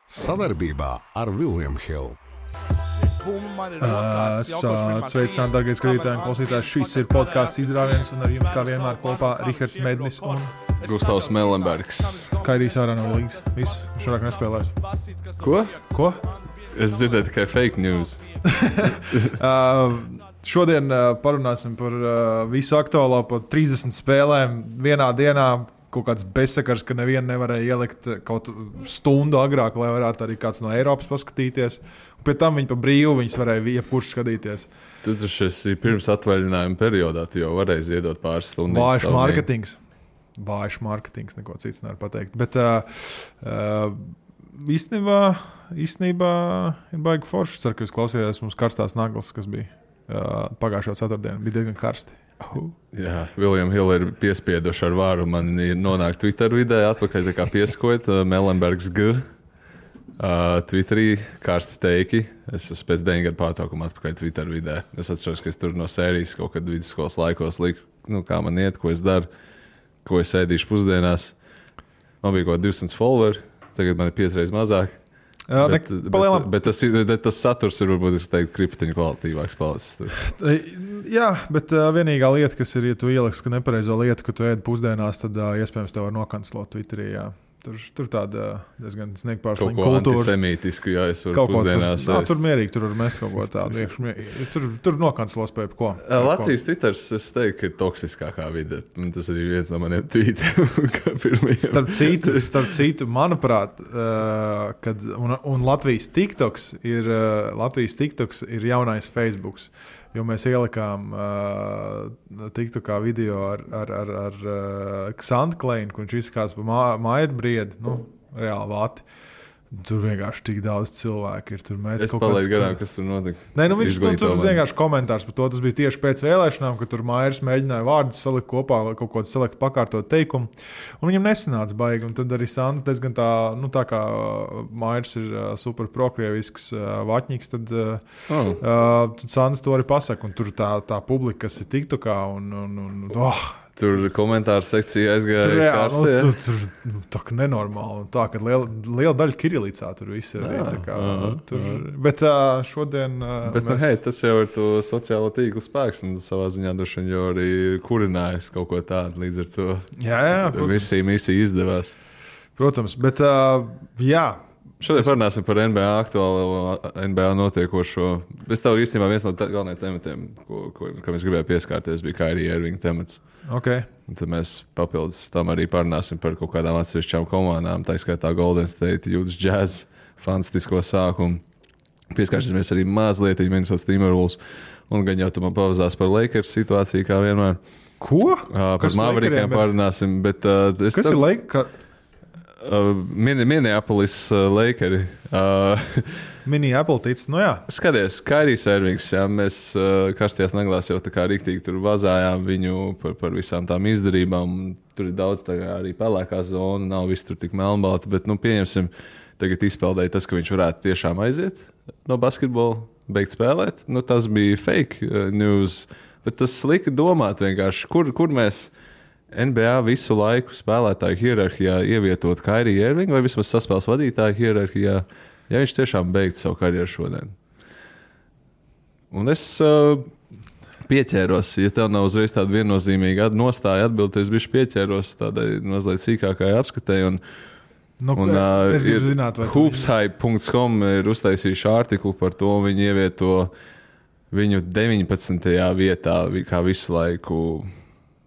Sadarbībā ar William Hill. Sveicināti, dārgie skatītāji un klausītāji. Šis ir podcasts Izrāviens, un ar jums kā vienmēr kopā Rihards Mednis un Gustavs Melenbergs. Kairīs ārā no līgas. Viss, šodien nespēlēs. Ko? Es dzirdēju tikai fake news. Šodien parunāsim par visu aktuālo, par 30 spēlēm vienā dienā. Kaut kāds bezsakars, ka nevienu nevarēja ielikt kaut stundu agrāk, lai varētu arī kāds no Eiropas paskatīties. Un pēc tam viņi pa brīvu, viņas varēja jebkurš skatīties. Tu taču esi pirms atvaļinājuma periodā, tu jau varēji ziedot pāris stundas. Vājš mārketings, neko cits nevar pateikt. Bet īstenībā ir baigi forši. Ceru, ka jūs klausījāties mums karstās naglas, kas bija pagājušo ceturtdienu. Bija diezgan karsti. Jā, William Hill ir piespieduši ar vāru. Man ir nonākt Twitter vidē, atpakaļ tā kā pieskot Melenbergs G. Twitterī karsti teiki. Es esmu pēc 9 gadu pārtraukuma atpakaļ Twitter vidē. Es atceros, ka es tur no sērijas kaut kad vidusskolas laikos liku, kā man iet, ko es daru, ko es ēdīšu pusdienās. Man bija kaut 200 followeri, tagad man ir 5 reizes mazāk. Bet tas saturs ir varbūt kriptiņu kvalitīvāks palicis. Jā, bet vienīgā lieta, kas ir, ja tu ieliks nepareizo lietu, ka tu ēd pusdienās, tad iespējams tev var nokancelot Twitterī. Jā. Tur tāda diezgan sniegpārslīga kultūra. Kaut ko antisemītisku, ja es varu pusdienās. Tur mierīgi, tur var mest kaut ko tādu. Tur nokancelos pēc ko. Latvijas Twitters, es teiktu, ka ir toksiskākā vide. Tas ir viens no maniem tweetiem. Starp citu, manuprāt, un Latvijas TikToks ir jaunais Facebooks. Jo mēs ielikām TikTokā video ar Xantu Kleinu, kur viņš izskatās pa Mairbriedi, reāli vati. Tur vienkārši tik daudz cilvēku ir. Es palaidu garām, kas tur notika. Nē, viņš tur vienkārši komentārs par to. Tas bija tieši pēc vēlēšanām, kad tur Mairs mēģināja vārdus salikt kopā, kaut ko selekt pakārtot teikumu. Un viņam nesanāca baigi. Un tad arī Santa diezgan tā kā Mairs ir super prokrievisks vaķņīgs, tad Santa to arī pasaka. Un tur tā publika, kas ir TikTokā Tur komentāru sekcija aizgāja karstie. Tur tā kā nenormāli. Un tā, ka liela daļa kirilicā tur viss ir. Bet šodien... Tas jau ir to sociālo tīklu spēks, un savā ziņā droši vien jau arī kurinājis kaut ko tādu līdz ar to. Jā, misija izdevās. Protams, bet jā. Šodien parunāsim par NBA aktuālo, NBA notiekošo. Es tev īstenībā viens no galvenajiem tematiem, kam es gribēju pieskārties, bija Kyrie Irving temats. Okay. Un tad mēs papildus tam arī parunāsim par kaut kādām atsevišķām komandām, tā skaitā Golden State, Utah Jazz, fantastisko sākumu. Pieskārsimies arī mazliet Minnesota Timberwolves, un gan jau tu man pavazās par Lakers situāciju, kā vienmēr. Ko? Par Maverikiem parunāsim, bet... Kas ir Lakers? Minneapolis Lakeri. Minneapolis, jā. Skaties, Kairijs Irvings, jā, mēs karstajās naglās jau tā kā riktīgi tur vazājām viņu par visām tām izdarībām. Tur ir daudz tā kā arī pelēkā zona, nav viss tur tik melnbalti, bet, pieņemsim, tagad izpeldēja tas, ka viņš varētu tiešām aiziet no basketbola, beigt spēlēt. Tas bija fake news, bet tas lika domāt vienkārši, kur mēs NBA visu laiku spēlētāju hierarhijā ievietot Kyrie Irving vai vismaz saspēles vadītāju hierarhijā, ja viņš tiešām beigtu savu karjeru šodien. Un es pieķēros, ja tev nav uzreiz tāda viennozīmīga nostāja atbildes, bišķi pieķēros tādai mazliet sīkākai apskatēji. Es gribu zināt, vai hoopshype.com ir uztaisījuši artiklu par to, un viņi ievieto viņu 19. vietā, kā visu laiku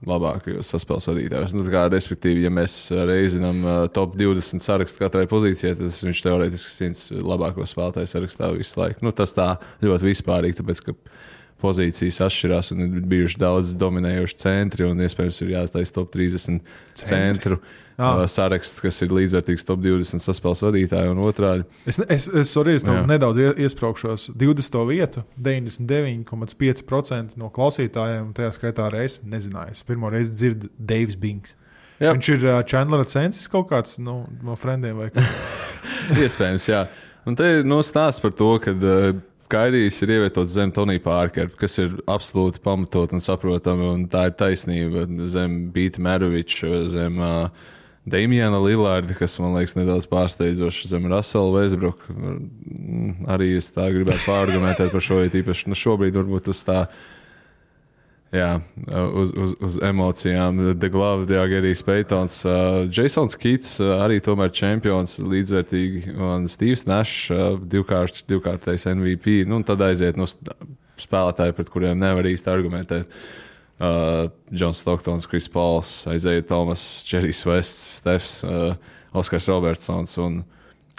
labākajos saspēles vadītājos. Respektīvi, ja mēs reizinām top 20 sarakstu katrai pozīcijai, tad viņš teorētiski 100 labāko spēlētāju sarakstā visu laiku. Tas tā ļoti vispārīgi, tāpēc, ka pozīcijas atšķirās un ir bijuši daudz dominējoši centri un iespējams ir jāstājas top 30 centru saraksts, kas ir līdzvērtīgs top 20 saspēles vadītāju un otrādi. Es nedaudz iespraukšos 20. vietu, 99,5% no klausītājiem, tajā skaitā arī es nezināju. Es pirmo reizi dzirdu Davis Bings. Jā. Viņš ir Chandler Censis kaut kāds no friendiem vai kas? Iespējams, jā. Un te ir stāsts par to, ka Kairijs ir ievietots zem Tonija Parkera, kas ir absolūti pamatot un saprotami, un tā ir taisnība zem Bīta Meroviča, zem Damiana Lillarda, kas man liekas nedaudz pārsteidzoši zem Russell Westbrook. Arī es tā gribētu pārargumentēt par šo, ja tīpaši šobrīd varbūt tas tā, uz emocijām. The Glove, Diagerijs Paytons, Jasons Keats, arī tomēr čempions līdzvērtīgi, un Steves Nash, divkārtais MVP, un tad aiziet spēlētāji, pret kuriem nevar īsti argumentēt. Johns Stocktons, Chris Pauls, Isaiah Thomas, Jerrys Wests, Stefs, Oskars Robertsons un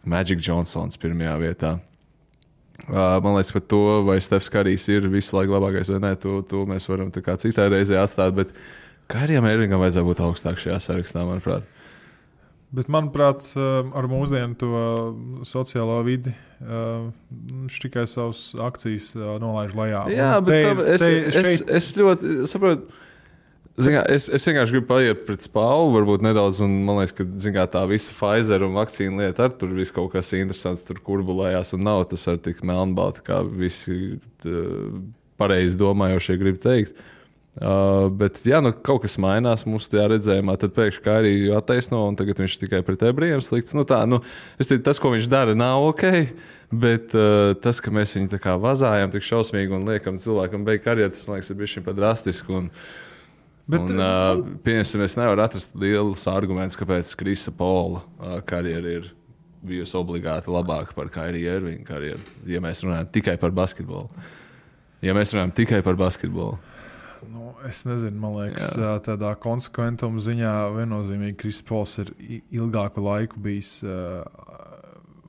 Magic Johnsons pirmajā vietā. Man liekas par to, vai Stefs Karijs ir visu laiku labākais vai nē, to mēs varam tā kā citā reizē atstāt, bet Kairijam Irvingam vajadzētu būt augstāk šajā sarakstā, manuprāt. Bet, manuprāt, ar mūsdienu to sociālo vidi viņš tikai savas akcijas nolaiž lejā. Jā, bet es ļoti saprotu. Es vienkārši gribu paiet pret spālu, varbūt nedaudz, un man liekas, ka tā visa Pfizer un vakcīna lieta ar tur viss kaut kas interesants tur kurbulējās, un nav tas ar tik melnbalti, kā visi pareizi domājošie grib teikt. Bet, ja kaut kas mainās mūsu tajā redzējumā, tad pēkšņi Kairiju attaisno, un tagad viņš tikai pret ebrejiem slikts. Tas, ko viņš dara, nav ok, bet tas, ka mēs viņu tā kā vazājam tik šausmīgi un liekam cilvēkam beigt karjeru, tas, man liekas, ir bišķiņ pat drastiski. Pieņemsim, es nevaru atrast lielus argumentus, kāpēc Krisa Paula karjera ir bijusi obligāti labāka par Kairiju Irvinga karjeru, ja mēs runājam tikai par basketbolu. Es nezinu, man liekas, tādā konsekventuma ziņā viennozīmīgi Kris Pols ir ilgāku laiku bijis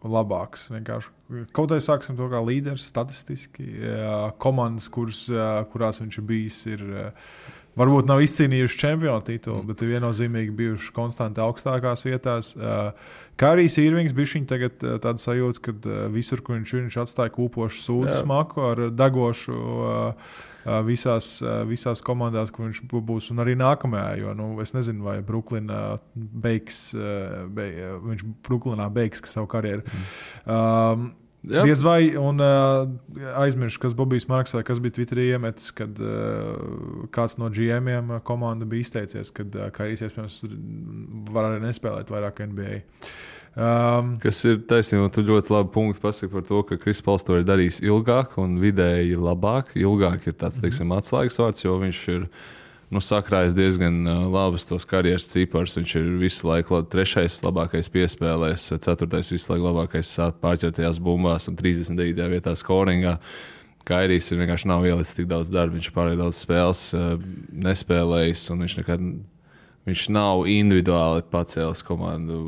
labāks. Vienkārši. Kaut arī sāksim to kā līderis statistiski. Komandas, kurās viņš ir bijis, varbūt nav izcīnījuši čempionu titulu, bet ir viennozīmīgi bijuši konstanti augstākās vietās. Kairijs Irvings bišķiņ tagad tāda sajūta, ka visur, kur viņš atstāja kūpošu sūdu smaku ar degošu visās komandās, kur viņš būs, un arī nākamajā, jo es nezinu, vai viņš Bruklinā beigs savu karjeru. Diez vai, un aizmiršu, kas Bobijs Marks vai kas bija Twitterī iemetis, kad kāds no GM-iem komanda bija izteicies, kad Kairijs iespējams var arī nespēlēt vairāk NBA. Kas ir taisnība, tu ļoti labi punktu pasaki par to, ka Kris Pols to ir darījis ilgāk un vidēji labāk. Ilgāk ir tāds, teiksim, atslēgas vārds, jo viņš ir sakrājis diezgan labus tos karjeras ciparus. Viņš ir visu laiku 3. labākais piespēlēs, 4. visu laiku labākais pārķertajās bumbās un 39. vietā scoringā. Kairijs vienkārši nav ielicis tik daudz darba, viņš pārēj daudz spēles nespēlējis, un viņš nav individuāli pacēlis komandu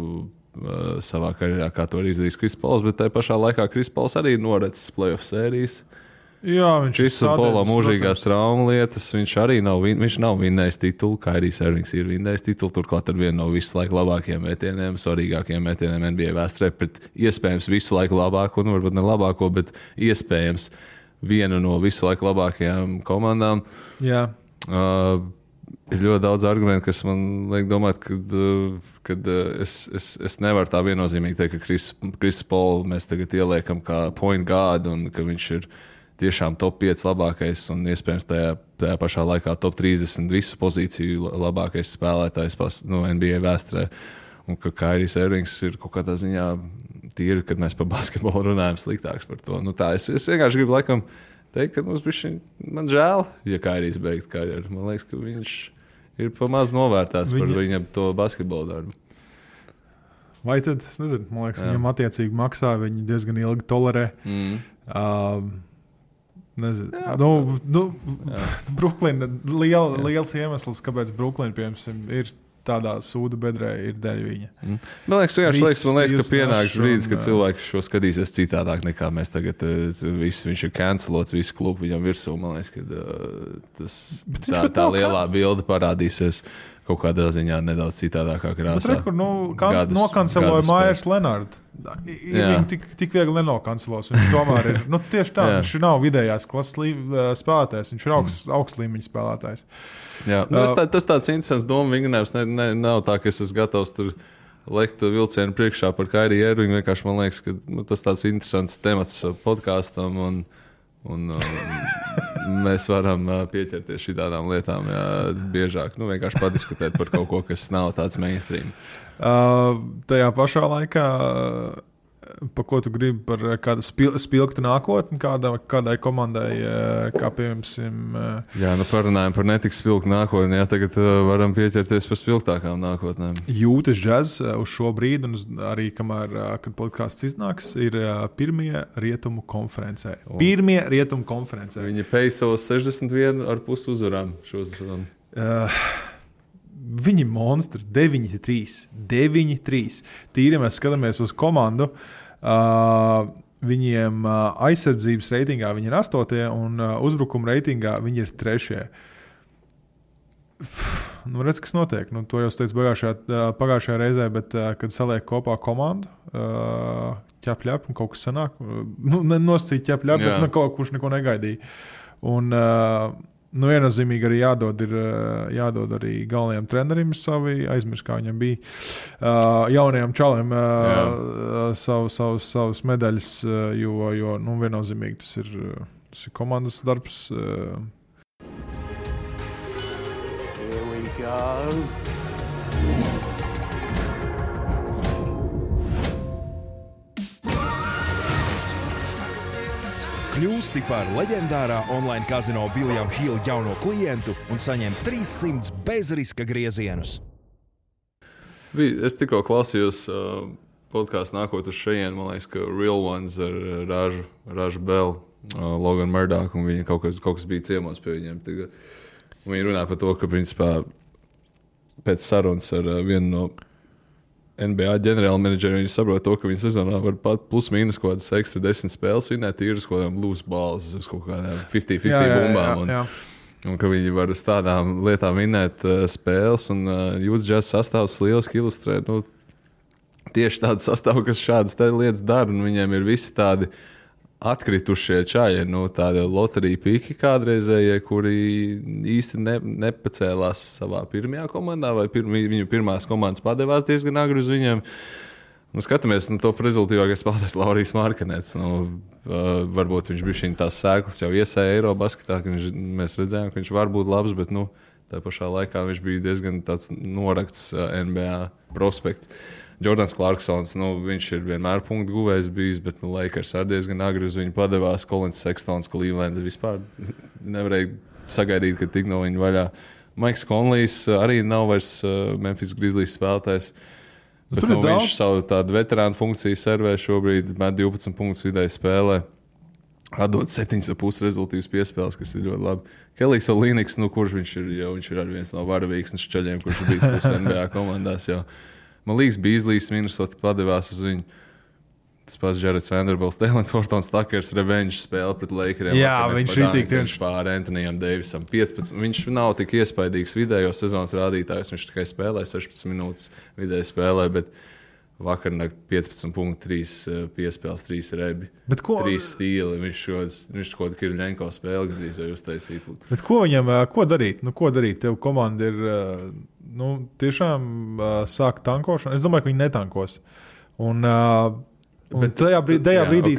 savā karjerā, kā to ir izdarījis Kris Pols, bet tajā pašā laikā Kris Pols arī noracis playoff sērijas. Jā, viņš ir Pola mūžīgās traumu lietas, viņš arī nav vinnējis titulu, Kairijs Irvings ir vinnējis titulu, turklāt ar vienu no visu laiku labākajiem metieniem, svarīgākajiem metieniem NBA vēsturē, pret iespējams visu laiku labāko, varbūt ne labāko, bet iespējams vienu no visu laiku labākajām komandām. Jā. Ir ļoti daudz argumentu, kas man liek domāt, ka es nevaru tā viennozīmīgi teikt, ka Kris Polu mēs tagad ieliekam kā point guard un ka viņš ir tiešām top 5 labākais un iespējams tajā pašā laikā top 30 visu pozīciju labākais spēlētājs NBA vēsturē. Un ka Kairijs Irvings ir kaut kādā ziņā tīri, kad mēs par basketbolu runājam sliktāks par to. Es vienkārši gribu laikam teikt, ka man žēl, ja Kairijs beigt karjeru. Man liekas, ka viņš ir pamaz novērtēts par viņam to basketbolu darbu. Vai tad, es nezinu, man liekas, viņam attiecīgi maksā, viņi diezgan ilgi tolerē. Nezinu. Bruklina, liels iemesls, kāpēc Bruklina, piemēram, ir tādā sūdu bedrē, ir dēļ viņa. Man liekas, ka pienāks brīdis, kad cilvēki šo skatīsies citādāk nekā mēs tagad. Viņš ir cancelots, visu klubu viņam virsū. Man liekas, ka tā lielā bilde parādīsies kaut kādā ziņā nedaudz citādākā krāsā. Bet nokanceloja Maiers Lenārdu. Viņu tik viegli nenokancelos. Viņš tomēr ir, tieši tā, viņš nav vidējās klases spēlētājs, viņš ir augsts līmeņa spēlētājs. Jā, tas tāds interesants doma vingrinājums. Nav tā, ka es esmu gatavs tur lekt vilcienu priekšā par Kairiju Irvingu. Vienkārši man liekas, ka tas tāds interesants temats podkāstam un mēs varam pieķerties šitādām lietām biežāk. Vienkārši padiskutēt par kaut ko, kas nav tāds mainstream. Tajā pašā laikā, pa ko tu gribi par kādu spilgtu nākotni, kādai komandai, kā piemēram... Jā, parunājam par netik spilgtu nākotni, tagad varam pieķerties par spilgtākām nākotnēm. Jūtas Jazz uz šo brīdi, un arī kamēr, kad podcasts iznāks, ir pirmie rietumu konferencē. Pirmie rietumu konferencē. Viņi peisos 61,5 uzvarām šo sezonu. Viņi monstri, 9-3. Tīri mēs skatāmies uz komandu. Viņiem aizsardzības reitingā viņi ir 8. un uzbrukuma reitingā viņi ir 3. Redz, kas notiek. To jau es teicu pagājušajā reizē, bet kad saliek kopā komandu, ķep, un kaut kas sanāk. Nosacīt ķep, bet kaut kurš neko negaidīja. Un viennozīmīgi arī jādod arī galvenajam trenerim savi, aizmirst, kā viņam bija, jaunajam čalim savus medaļas, jo viennozīmīgi tas ir komandas darbs. Here we go. Kļūsti par leģendārā online kazino William Hill jauno klientu un saņem 300 bezriska griezienus. Es tikko klausījos podkāstu nākot uz šejien, man liekas, ka Real Ones ar Ražu Bell, Logan Murdoch, un viņi kaut kas bija ciemos pie viņiem. Viņi runāja par to, ka principā pēc sarunas ar vienu no NBA ģenerāla menedžeri, viņi saprot to, ka viņi sezonā var pat plus mīnus kaut kādas ekstra 10 spēles vinēt, ir uz kaut kādām loose balls, uz kaut kādām 50-50 bumbām. Un ka viņi var uz tādām lietām vinēt spēles, un Utah Jazz sastāvs lieliski ilustrē tieši tādu sastāvu, kas šādas lietas dara, un viņiem ir visi tādi atkritušie čaļi, tādi loterija piki kādreizējie, kuri īsti nepacēlās savā pirmajā komandā, vai viņu pirmās komandas padevās diezgan agri uz viņiem. Skatāmies, to rezultīvākais spēlētājs Laurijs Markanets. Varbūt viņš bija tās sēklas jau iesēja Eirobasketā, ka mēs redzējām, ka viņš var būt labs, bet tā pašā laikā viņš bija diezgan tāds norakts NBA prospekts. Jordans Clarksons, viņš ir vienmēr punktu guvējs bijis, bet Lakers arī diezgan agri uz viņu padevās. Collins Sextons, Cleveland vispār nevarēja sagaidīt, ka tik no viņa vaļā. Maiks Conleys arī nav vairs Memphis Grizzlies spēlētājs. Bet, viņš savu tādu veterānu funkciju servē šobrīd, met 12 punktus vidēji spēlē. Atdod 7,5 rezultīvas piespēles, kas ir ļoti labi. Kelijs Olīniks, kurš viņš ir arī viens no varavīksnes čaļiem, kurš ir bijis puse NBA komandās jau. Man liekas, Beasley's Minnesota padevās uz viņu. Tas pats Jareds Vanderbilts, Taylors Hortons Takers revenge spēle pret Lakeriem. Jā, viņš ir tik pār Antonijam Davisam 15. Viņš nav tik iespaidīgs vidējo sezonas rādītājs. Viņš tikai spēlē 16 minūtes vidēji spēlē, bet vakarnakt 15,3 piespēles, 3 rebi, 3 stīli. Viņš kaut kā Kirļenko spēli gandrīz jau uztaisīt. Bet ko viņam, ko darīt? Ko darīt? Tev komanda ir, tiešām sāk tankošanu. Es domāju, ka viņi netankos. Un tajā brīdī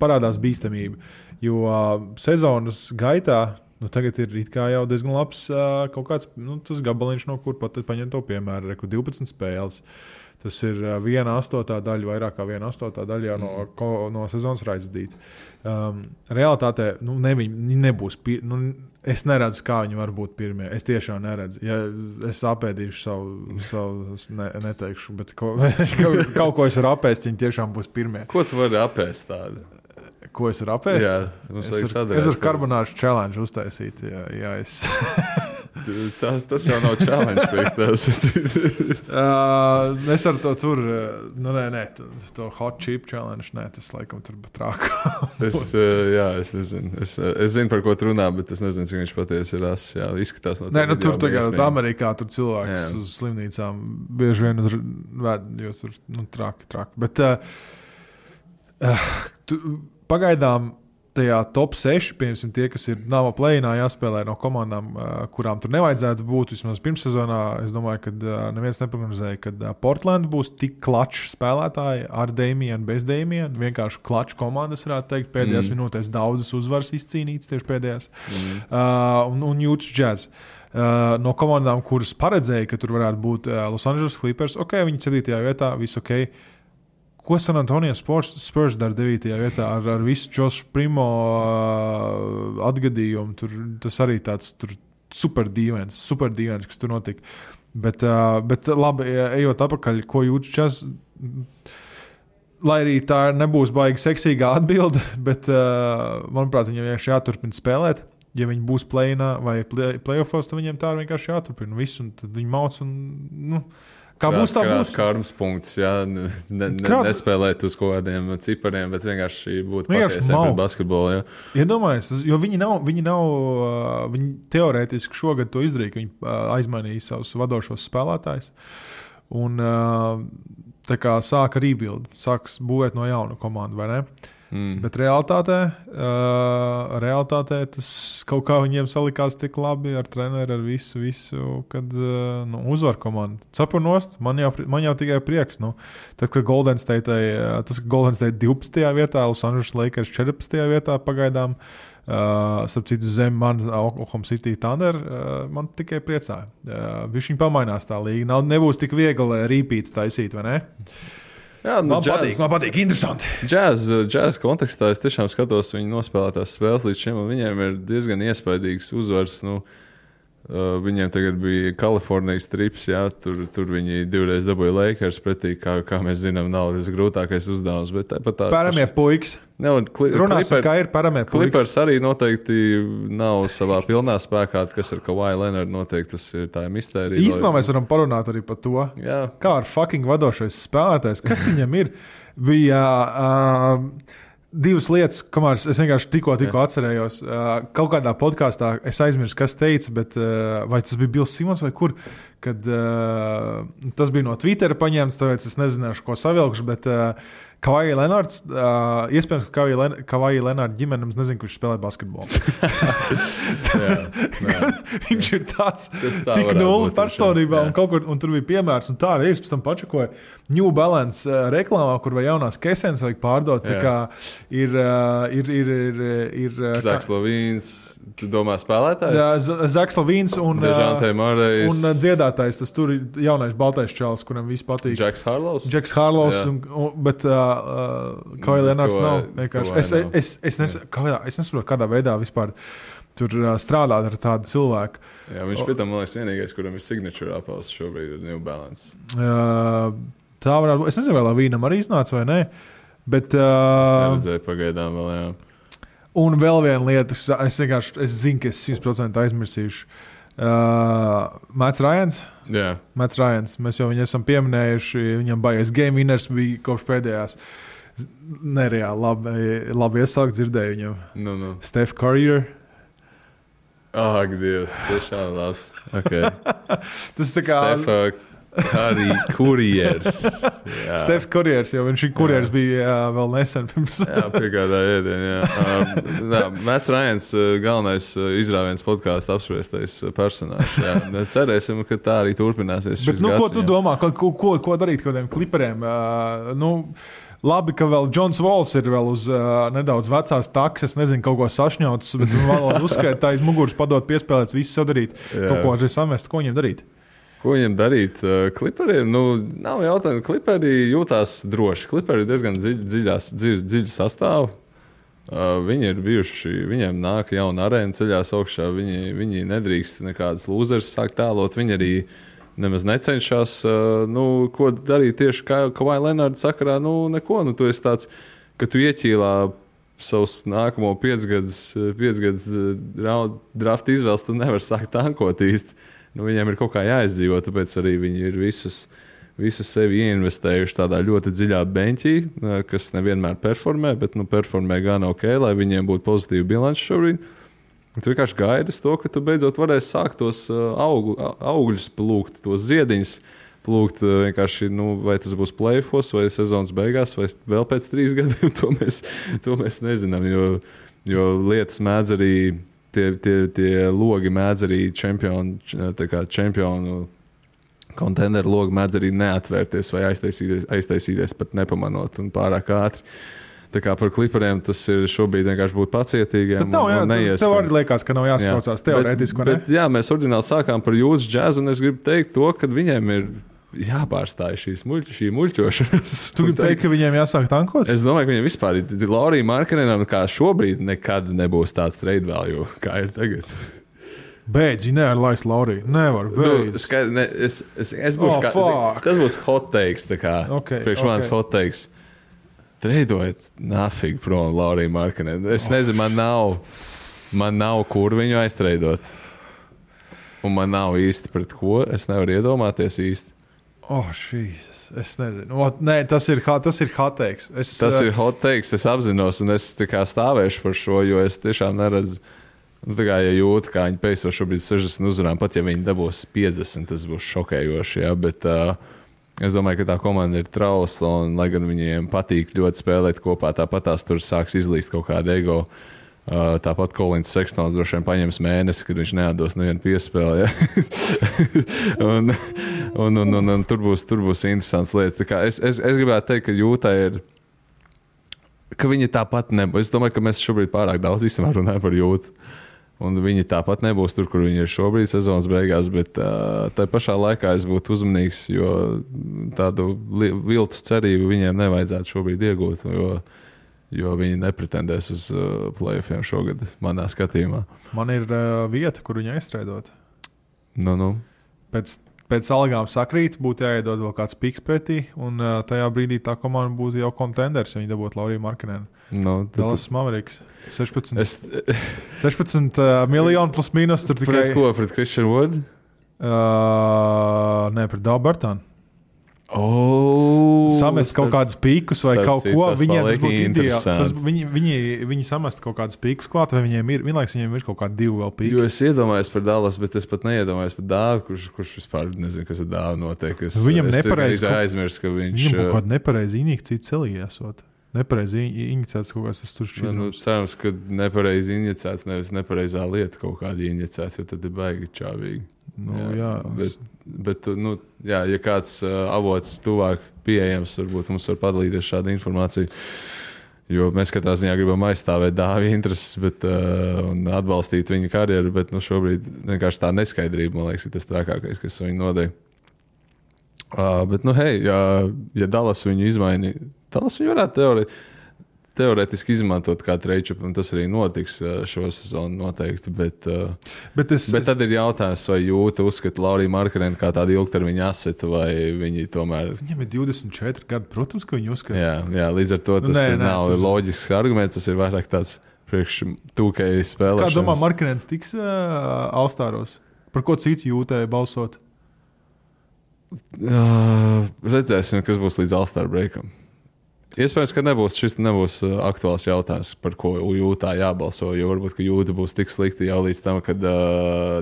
parādās bīstamība. Jo sezonas gaitā, tagad ir it kā jau diezgan labs kaut kāds, tas gabaliņš, no kur pat paņem to piemēru, 12 spēles. Tas ir 1/8 daļa, vairāk kā 1/8 daļa no sezonas raizadīta. Realitātē viņi nebūs. Es neredzu, kā viņi var būt pirmie. Es tiešām neredzu. Ja es apēdīšu savu neteikšu, bet kaut ko es varu apēst, viņi tiešām būs pirmie. Ko tu vari apēst tādu? Ko es varu apēst? Jā, es varu karbonāžu challenge uztaisīt. Jā, tas jau nav challenge priekš tevis. Es ar to tur, to hot chip challenge, tas laikam tur pat trāk. Es nezinu. Es zinu, par ko tu runā, bet es nezinu, cik viņš patiesi ir ass. Jā, izskatās no tā. Tur tagad Amerikā tur cilvēks uz slimnīcām bieži vien ved, jo tur traki. Bet pagaidām tajā top 6, piemēram, tie, kas ir nav play-inā jāspēlē no komandām, kurām tur nevajadzētu būt, vismaz pirmssezonā, es domāju, ka neviens neprognozēja, ka Portland būs tik klačs spēlētāji ar Damienu, bez Damienu, vienkārši klačs komandas, varētu teikt, pēdējās minūtēs daudzas uzvaras izcīnītas tieši pēdējās, un Utah Jazz. No komandām, kuras paredzēja, ka tur varētu būt Los Angeles Clippers, viņi 7. vietā, viss ok. Ko San Antonio Spurs dara 9. vietā ar visu Josh Primo atgadījumu? Tas arī tāds super dīvains, kas tur notika. Bet labi, ejot apakaļ, ko Utah Jazz, lai arī tā nebūs baigi seksīgā atbilde, bet, manuprāt, viņam vienkārši jāturpina spēlēt. Ja viņi būs play-inā vai play-offos, tad viņiem tā vienkārši jāturpina visu, un tad viņi mauc un, kā būs, tā būs. Kārums punkts, jā, nespēlēt uz kaut kādiem cipariem, bet vienkārši būt patiesiem pret basketbolu, jā. Iedomājies, jo viņi teorētiski šogad to izdarīja, ka viņi aizmainīja savus vadošos spēlētājus, un tā kā sāka rebuild, sāks būvēt no jauna komandu, vai ne? Bet realitātē tas kaut kā viņiem salikās tik labi ar treneri, ar visu, kad uzvar komandu. Cepur nost, man jau tikai prieks. Tad, kad Golden State 12. vietā, Los Angeles Lakers 14. vietā pagaidām, starp citu zem man Oklahoma City Thunder, man tikai priecāja. Viņš viņi pamainās tā līga. Nebūs tik viegli rīpīts taisīt, vai ne? Jā, man patīk, interesanti. Jazz kontekstā es tiešām skatos viņu nospēlētās spēles līdz šim, un viņiem ir diezgan iespaidīgs uzvars. Viņiem tagad bija Kalifornijas trips, jā, tur viņi divreiz dabūja Lakers pretī, kā mēs zinām, nav tas grūtākais uzdevums. Paramie puikas. Runāsim, kā ir paramie puikas. Clippers arī noteikti nav savā pilnā spēkā, kas ar Kawhi Leonard noteikti, tas ir tā mistērija. Īstenībā mēs varam parunāt arī par to, kā ar fucking vadošais spēlētājs, kas viņam ir. Bija divas lietas, kamēr es vienkārši tikko atcerējos. Kaut kādā podkāstā es aizmirsu, kas teica, bet vai tas bija Bills Simons vai kur, kad tas bija no Twittera paņemts, tāpēc es nezināšu, ko savilkšu, bet Kawhi Leonards, iespējams, ka Kawhi Leonard ģimene mums nezinu, kurš spēlē basketbolu. Viņš ir tāds tik nulli personībā un kaut kur, un tur bija piemērs, un tā arī es pēc tam pačakoju New Balance reklāmā, kur vai jaunās kesenes vajag pārdot, tā kā ir Zaks Lavīns, tu domā spēlētājs? Jā, Zaks Lavīns un Dežante Marejs. Un dziedātājs, tas tur ir jaunais baltais čalis, kuram viss patīk. Jacks Harlows, bet Kawhi Leonards nav. Es nesaprotu, kādā veidā vispār tur strādāt ar tādu cilvēku. Jā, viņš pie tam, man liekas, vienīgais, kuram ir signature apels šobrīd ir New Balance. Tā varētu būt. Es nezinu, vai Lavīnam arī iznāca vai nē, bet es neredzēju pagaidām vēl, jā. Un vēl viena lieta, es zinu, ka es 100% aizmirsīšu. Mats Ryans. Jā. Mats Ryans. Mēs jau viņu esam pieminējuši. Viņam baigais game winners bija kopš pēdējās. Nereāli labi iesākt dzirdēju viņam. Steph Curry. Ak, Dievs, tiešām labs. Okay. Tas tā kā... Steph Kurjers. Stefs Kurjers, jo viņš kurjers bija vēl nesen pirms. Jā, piegādā ēdienu, jā. Mats Ryans, galvenais izrāviens podkāstu apspriestais personāžs. Jā. Cerēsim, ka tā arī turpināsies šis gads. Ko tu domā, ko darīt kādiem kliperiem? Labi, ka vēl Džons Vols ir vēl uz nedaudz vecās takses, nezinu, kaut ko sašņauts, bet vēl uzskaita tā iz muguras padot piespēlēt, visu sadarīt, kaut ko arī samest, ko viņiem darīt? Ko viņam darīt? Kliperiem, nav jautājumu. Kliperi jūtās droši. Kliperi ir diezgan dziļu sastāvu. Viņi ir bijuši, viņiem nāk jauna arēna ceļās augšā. Viņi nedrīkst nekādas lūzeres sākt tēlot. Viņi arī nemaz necenšas, ko darīt tieši kā Kawhi Leonard sakarā. Neko, tu esi tāds, ka tu ieķīlā savus nākamo 5 gadus draft izvēles, tu nevar sākt tankot īsti. Viņiem ir kaut kā jāizdzīvo, tāpēc arī viņi ir visu sevi ieinvestējuši tādā ļoti dziļā beņķī, kas nevienmēr performē, bet performē gan ok, lai viņiem būtu pozitīva bilanci šobrīd. Tu vienkārši gaidi uz to, ka tu beidzot varēsi sākt tos augļus plūkt, tos ziediņus plūkt vienkārši, vai tas būs play-offs, vai sezonas beigās, vai vēl pēc 3 gadiem, to mēs nezinām, jo Jo lietas mēdz arī, tie logi mēdz arī čempionu kontenderu logi mēdz arī neatvērties vai aiztaisīties pat nepamanot un pārāk ātri. Tā kā par Clipperiem tas ir šobrīd vienkārši būt pacietīgiem. Bet nav, tev arī liekas, ka nav jāsaucās teorētiski, vai ne? Bet jā, mēs oriģināli sākām par jūsu džazu, un es gribu teikt to, ka viņiem ir jāpārstāj šī muļķošanas. Tu gribi teikt, ka viņiem jāsāk tankot? Es domāju, ka viņiem vispār ir Laurija Markkanenam, kā šobrīd nekad nebūs tāds trade value, kā ir tagad. Beidz, nevar laist Lauriju. Nevar, beidz. Es būšu tas būs hot takes, tā kā priekš manis hot takes. Treidojiet nafīgi prom Lauriju Markkanenu. Es nezinu, man nav kur viņu aiztreidot. Un man nav īsti pret ko. Es nevaru iedomāties īsti. Šīs. Es nezinu. Nē, tas ir hot takes. Tas ir hot takes, es apzinos, un es tā kā stāvēšu par šo, jo es tiešām neredzu. Tā kā ja jūtu, kā viņi peiso šobrīd 60 uzvarām, pat ja viņi dabūs 50, tas būs šokējoši, jā, bet es domāju, ka tā komanda ir trausla, un lai gan viņiem patīk ļoti spēlēt kopā, tāpat tās tur sāks izlīst kaut kāda ego. Tāpat Kolins Sekstons droši vien paņems mēnesi, kad viņš neatdos nevienu piespēli. Ja? un tur būs interesants lietas. Tā kā es gribētu teikt, ka Jūtai ir, ka viņi tāpat nebūs. Es domāju, ka mēs šobrīd pārāk daudz runājam par Jūtu. Un viņi tāpat nebūs tur, kur viņi ir šobrīd sezonas beigās, bet tā pašā laikā es būtu uzmanīgs, jo tādu viltus cerību viņiem nevajadzētu šobrīd iegūt, jo viņi nepretendēs uz playoffiem šogad, manā skatījumā. Man ir vieta, kur viņi aizstreidot. Nu. Pēc algām sakrīt, būtu jāiedod vēl kāds piks pretī, un tajā brīdī tā komanda būtu jau kontenders, ja viņi dabūtu Lauriju Markkanenu. Dallas Mavericks. 16 miljoni plus mīnus. Tur tikai... Pret ko? Pret Christian Wood? Nē, pret Davu Bartānu. Samest kaut kādus pīkus vai kaut ko. Viņiem tas būtu ideāli. Viņi samest kaut kādus pīkus klāt, vai viņiem ir, vienlaiks viņiem ir kaut kādi 2 vēl pīki. Jo es iedomājos par Dallas, bet es pat neiedomājos par Dāvu, kurš vispār nezinu, kas ar Dāvu notiek. Viņam nepareizi aizmirst, ka viņš... Viņam kaut kāda nepareizi injekcija celī esot. Nepareizi injicēts kaut kāds tas tur šķidrums. Cerams, ka nepareizi injicēts, nevis nepareizā lieta kaut kāda injicēts, jo tad ir baigi čāvīgi. Bet ja kāds avots tuvāk pieejams, varbūt mums var padalīties šādu informāciju, jo mēs katrā ziņā gribam aizstāvēt Dāvi intereses, un atbalstīt viņa karjeru, bet šobrīd vienkārši tā neskaidrība, man liekas, ir tas trakākais, kas viņu nodeļ. Bet, ja Dallas viņu izmainīja, Dallas viņu varētu teorētiski izmantot kā trade-up, un tas arī notiks šo sezonu noteikti, bet tad ir jautājums, vai Jūta uzskata Lauriju Markkanenu kā tādu ilgtermiņa asetu, vai viņi tomēr... Viņam ir 24 gadi, protams, ka viņi uzskata. Jā, līdz ar to tas nav loģisks arguments, tas ir vairāk tāds priekš tūkēji spēlēšanas. Kā domā, Markkanens tiks All-Staros? Par ko citu Jūtai balsot? Redzēsim, kas būs līdz All-Star breakam. Iespējams, ka šis nebūs aktuāls jautājums, par ko Jūtā jābalso, jo varbūt, ka Jūta būs tik slikti jau līdz tam, kad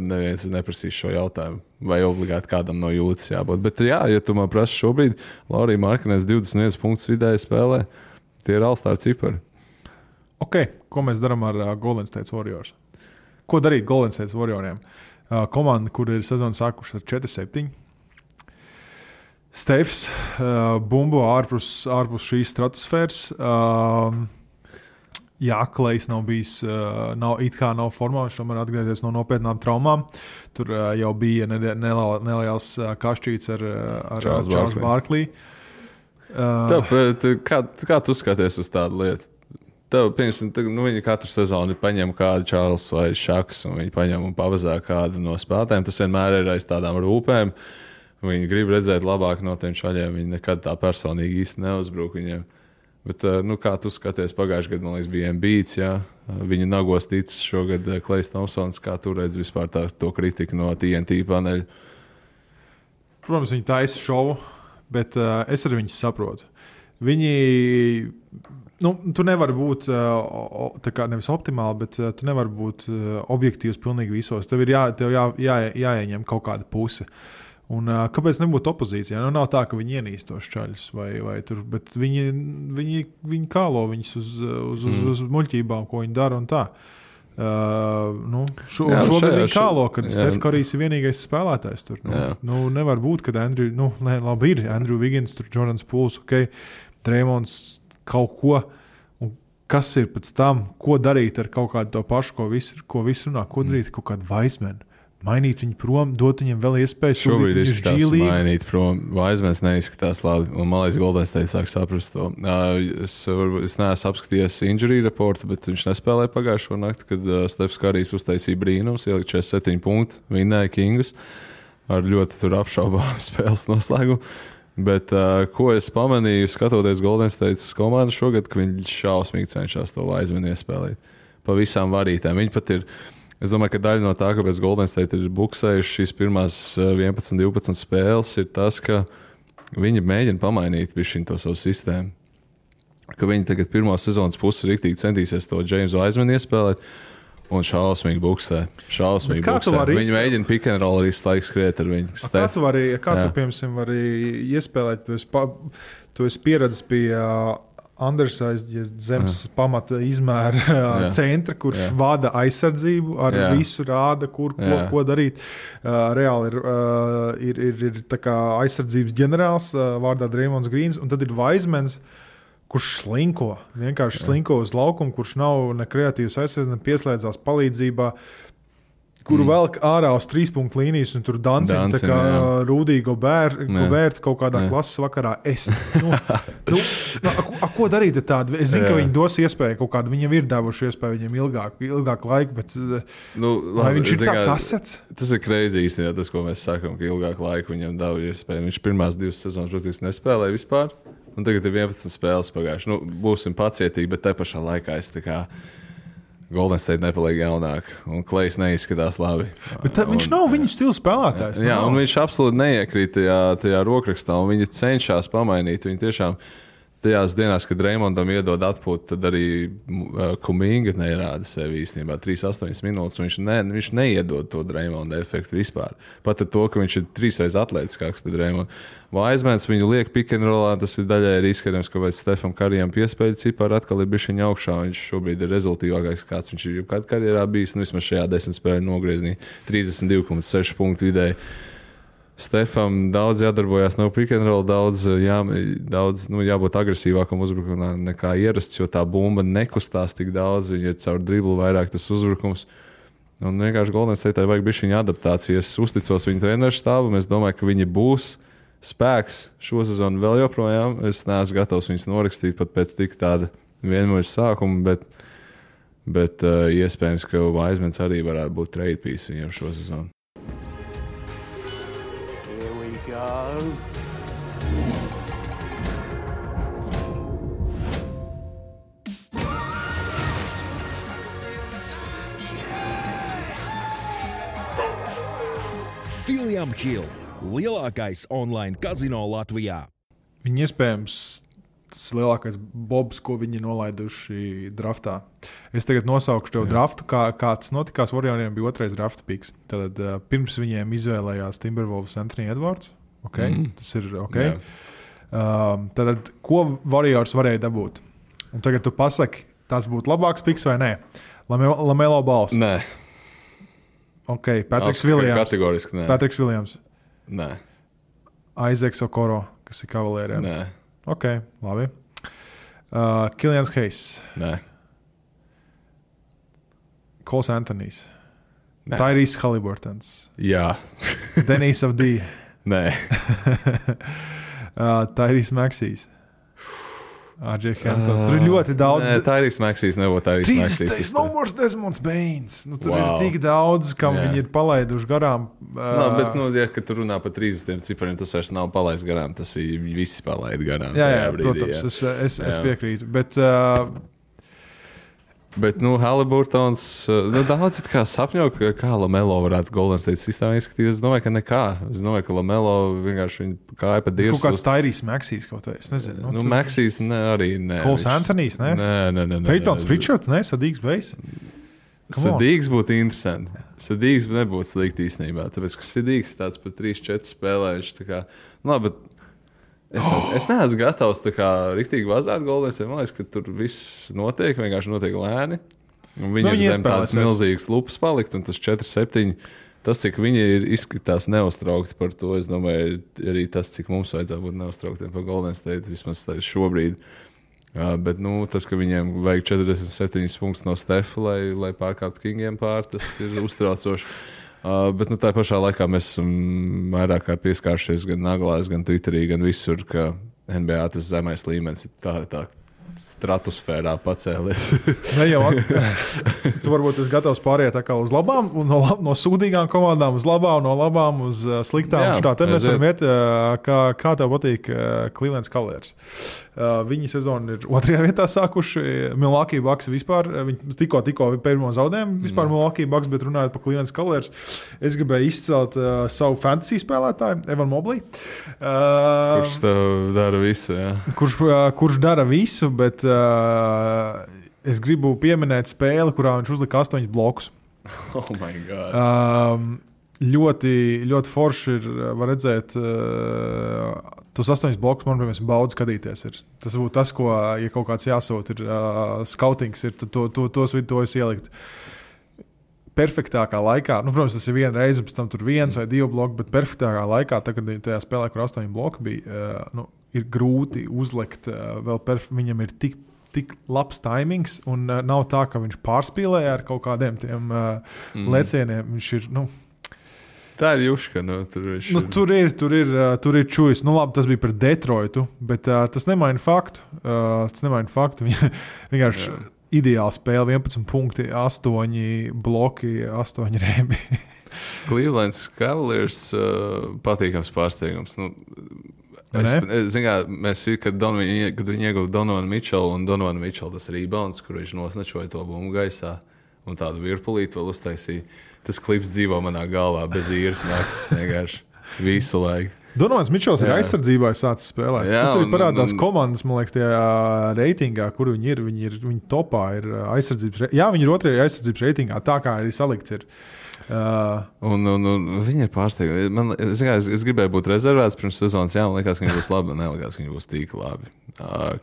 neviens neprasīs šo jautājumu, vai obligāti kādam no Jūtas jābūt. Bet ja tu man prasi šobrīd, Laurija Markkanens 21 punktus vidēji spēlē, tie ir All-Star cipari. Ko mēs darām ar Golden State Warriors? Ko darīt Golden State Warrioriem? Komanda, kur ir sezona sākuši ar 4-7. Stefs, bumbo ārpus šīs stratosfēras. Klejs nav bijis, nav formā, viņš tomēr atgriezies no nopietnām traumām. Tur jau bija neliels kašķīts ar Charles Barkley. Kā tu skaties uz tādu lietu? Viņi katru sezonu paņem kādu Charles vai Šaks, un viņi paņem un pavazā kādu no spēlētājiem. Tas vienmēr ir aiz tādām rūpēm. Viņi grib redzēt labāk no tiem čaļiem. Viņi nekad tā personīgi īsti neuzbruk viņiem. Bet, kā tu skaties, pagājušajā gadā, man liekas, bija Embiids, jā. Viņu nagos ticis šogad Klejs Thompsons. Kā tu redzi vispār to kritiku no TNT paneļa? Protams, viņi taisa šovu, bet es arī viņus saprotu. Viņi... tu nevari būt nevis optimāli, bet tu nevari būt objektīvs pilnīgi visos. Tev ir jāieņem kaut kāda puse. Un kāpēc nebūtu opozīcijā? Nu, nav tā, ka viņi ienīst tos čaļus, vai tur, bet viņi kālo viņus uz muļķībām, ko viņi dara un tā. Šogad viņi kālo, kad Steph Currys ir vienīgais spēlētājs tur. Nevar būt, kad labi ir Andrew Wiggins, tur Jordans Pools, Draymonds kaut ko. Un kas ir pēc tam? Ko darīt ar kaut kādu to pašu, ko visu runā? Ko darīt ar kaut kādu Wiseman? Mainīt viņu prom, dot viņam vēl iespēju. Šobrīd izskatās mainīt prom. Vaismēns neizskatās labi. Un man liekas, Golden State sāk saprast to. Es neesmu apskatījies injury reportu, bet viņš nespēlēja pagājušo nakti, kad Stefs Karīs uztaisīja brīnums, ielika 47 punktu, vinnēja Kingus ar ļoti tur apšaubām spēles noslēgumu. Bet ko es pamanīju, skatoties Golden State komandu šogad, ka viņi šausmīgi cenšas to Vaismēnu iespēlēt. Pa visām varītēm. Viņi pat ir... Es domāju, ka daļa no tā, kāpēc Golden State ir buksējuši šīs pirmās 11, 12 spēles, ir tas, ka viņi mēģina pamainīt bišķiņ to savu sistēmu. Ka viņi tagad pirmā sezonas pusi riktīgi centīsies to James Wisemanu iespēlēt un šausmīgi buksē. Viņi mēģina pick and roll arī laiks skriet ar viņu. Kā tu, piemēram, vari iespēlēt? Tu esi pieredzis pie... undersized zemes pamata izmēra centra, kurš vada aizsardzību, ar visu rāda, ko darīt. Reāli ir tā kā aizsardzības ģenerāls vārdā Draymonds Greens, un tad ir Wisemans, kurš vienkārši slinko uz laukumu, kurš nav ne kreatīvs aizsardzības, ne pieslēdzās palīdzībā, kuru velk ārā uz 3-punktu līnijas un tur dancina tā kā Rūdīgo bērti kaut kādā klases vakarā. Ko darīt ar tādu? Es zinu, ka viņi dos iespēju kaut kādu, viņam ir devuši iespēju viņam ilgāku laiku, bet vai viņš ir kāds asets? Tas ir crazy īstenībā, tas, ko mēs sakam, ka ilgāku laiku viņam devu iespēju. Viņš pirmās 2 sezonas, protams, nespēlēja vispār, un tagad ir 11 spēles pagājuši. Būsim pacietīgi, bet te pašā laikā es tā kā Golden State nepaliek jaunāk, un Klejs neizskatās labi. Bet viņš nav viņu stila spēlētājs. Jā, un viņš absolūti neiekrīt tajā rokrakstā, un viņi cenšas pamainīt. Viņi tiešām tajās dienās, kad Draymondam iedod atpūtu, tad arī Kuminga nerāda sevi īstenībā 3-8 minūtes. Viņš neiedod to Draymonda efektu vispār. Pat ar to, ka viņš ir 3 reizes atletiskāks par Draymondu. Wisemans viņu liek pick and rollā, tas ir daļai arī izskatījums, ka pēc Stefam Karijam piespēļu cipari atkal ir bišķiņ augšā. Viņš šobrīd ir rezultīvākais, kāds viņš ir jebkad karjerā bijis. Vismaz šajā 10 spēļu nogrieznī 32,6 punktu vidēji. Stefam daudz jādarbojās no pick and roll, daudz jābūt agresīvākam uzbrukumā nekā ierasts, jo tā bumba nekustās tik daudz, viņa ir caur driblu vairāk tas uzbrukums. Un vienkārši Golden State vajag bišķiņu adaptāciju. Es uzticos viņu treneru štābam, es domāju, ka viņi būs spēks šo sezonu vēl joprojām. Es neesmu gatavs viņus norakstīt pat pēc tik tāda vienmēr sākuma, bet iespējams, ka Wisemans arī varētu būt trade piece viņiem šo sezonu. Here we go. William Hill, lielākais online kazino Latvijā. Viņi iespējams tas lielākais bobs, ko viņi nolaiduši draftā. Es tagad nosaukšu tev draftu, kā tas notikās. Warrioriem bija 2. drafta piks. Tad pirms viņiem izvēlējās Timberwolves Anthony Edwards. Tas ir ok. Tad ko Warriors varēja dabūt? Un tagad tu pasaki, tas būtu labāks piks vai nē? Lamelo Balls. Nē. Ok, Patriks Williams. Kategoriski nē. Patriks Williams. Nē. Isaacs Okoro, kas ir Cavalieriem. Nē. Ok, labi. Killians Hayes. Nē. Coles Anthonys. Nē. Tyrese Haliburtons. Jā. Denis Avdija. Nē. Tyrese Maxeys. RJ Hamptons. Tur ir ļoti daudz. Nē, Tyrese Maxeys nebūtu Tyrese Maxeys. No more Desmonds Bains. Tur ir tik daudz, kam viņi ir palaiduši garām. Bet, ja tu runā par 30 cipariem, tas vairs nav palaists garām. Tas ir visi palaid garām. Jā, protams, es piekrītu. Bet Haliburtons, daudz kā sapņo, kā Lamelo varētu Golden State sistēmā izskatīties. Es domāju, ka nekā. Es domāju, ka Lamelo vienkārši viņa kāja pa dirsu. Kaut kāds Tyrese Maxeys kaut kā, es nezinu. Maxeys arī nē. Coles Anthonys, ne? Nē. Peytons Pritchards, ne? Sadīgs Bejs? Sadīgs būtu interesanti. Sadīgs nebūtu slikti īstenībā, tāpēc, ka Sadīgs tāds par 3-4 spēlējuši. Tā kā, labi, bet es neesmu gatavs tā kā riktīgi vazāt Golden State. Man liekas, ka tur viss notiek, vienkārši notiek lēni. Un viņi ir zem tādas milzīgas lupas palikt, un tas 4-7. Tas, cik viņi ir izskatās neuztraukti par to, es domāju, arī tas, cik mums vajadzētu būt neuztrauktiem par Golden State, vismaz šobrīd. Bet tas, ka viņiem vajag 47 punktus no Stefa, lai pārkāptu Kingiem pār, tas ir uztraucoši. Bet tā pašā laikā mēs esam vairāk kā pieskāršies gan naglās, gan Twitterī, gan visur, ka NBA tas zemais līmenis ir tā stratosfērā pacēlies. Ne jau tu varbūt esi gatavs pāriet uz labām, no sūdīgām komandām uz labām, no labām uz sliktām. Tad mēs varam iet, kā tev patīk Cleveland Cavaliers. Viņi sezonu ir 2. vietā sākuši. Milwaukee Bucks vispār, viņi tikko pirmo zaudējumu vispār Milwaukee Bucks, bet runājot par Cleveland Cavaliers, es gribēju izcelt savu fantasy spēlētāju, Evan Mobley. Kurš dara visu, jā. Kurš dara visu, bet es gribu pieminēt spēli, kurā viņš uzlika 8 blokus. Oh my God. Ļoti, ļoti forši ir, var redzēt, tos 8 blokus, manuprāt, baudu skatīties. Tas būtu tas, ko, ja kaut kāds jāsūt, ir skautings, ir to es ielikt. Perfektākā laikā, protams, tas ir viena reize, pēc tam tur 1 vai 2 bloki, bet perfektākā laikā, tagad tajā spēlē, kur 8 bloki bija, ir grūti uzlikt, viņam ir tik labs taimings, un nav tā, ka viņš pārspīlē ar kaut kādiem tiem lecieniem. Viņš ir, tā ir juška, tur ir čujs. Labi, tas bija par Detroitu, bet tas nemaina faktu. Vienkārši ideāli spēle, 11 punkti, 8 bloki, 8 rēbi. Cleveland Cavaliers patīkams pārsteigums. Kad viņi ieguva Donovanu Mitčelu, un Donovanu Mitčelu tas rebounds, kur viņš nosnačoja to bumbu gaisā un tādu virpulīti vēl uztaisīja. Tas klips dzīvo manā galvā bez īres maksas vienkārši visu laiku. Donovans Mitčels ir aizsardzībā sācis spēlēt. Tas arī parādās komandas, man liekas, tajā reitingā, kur viņi ir. Viņi topā ir aizsardzības. Jā, viņi ir 2. aizsardzības reitingā, tā kā arī salikts ir. Un viņi ir pārsteigti. Es gribēju būt rezervēts pirms sezonas. Jā, man liekas, ka viņi būs labi, un nelikās, ka viņi būs tik labi.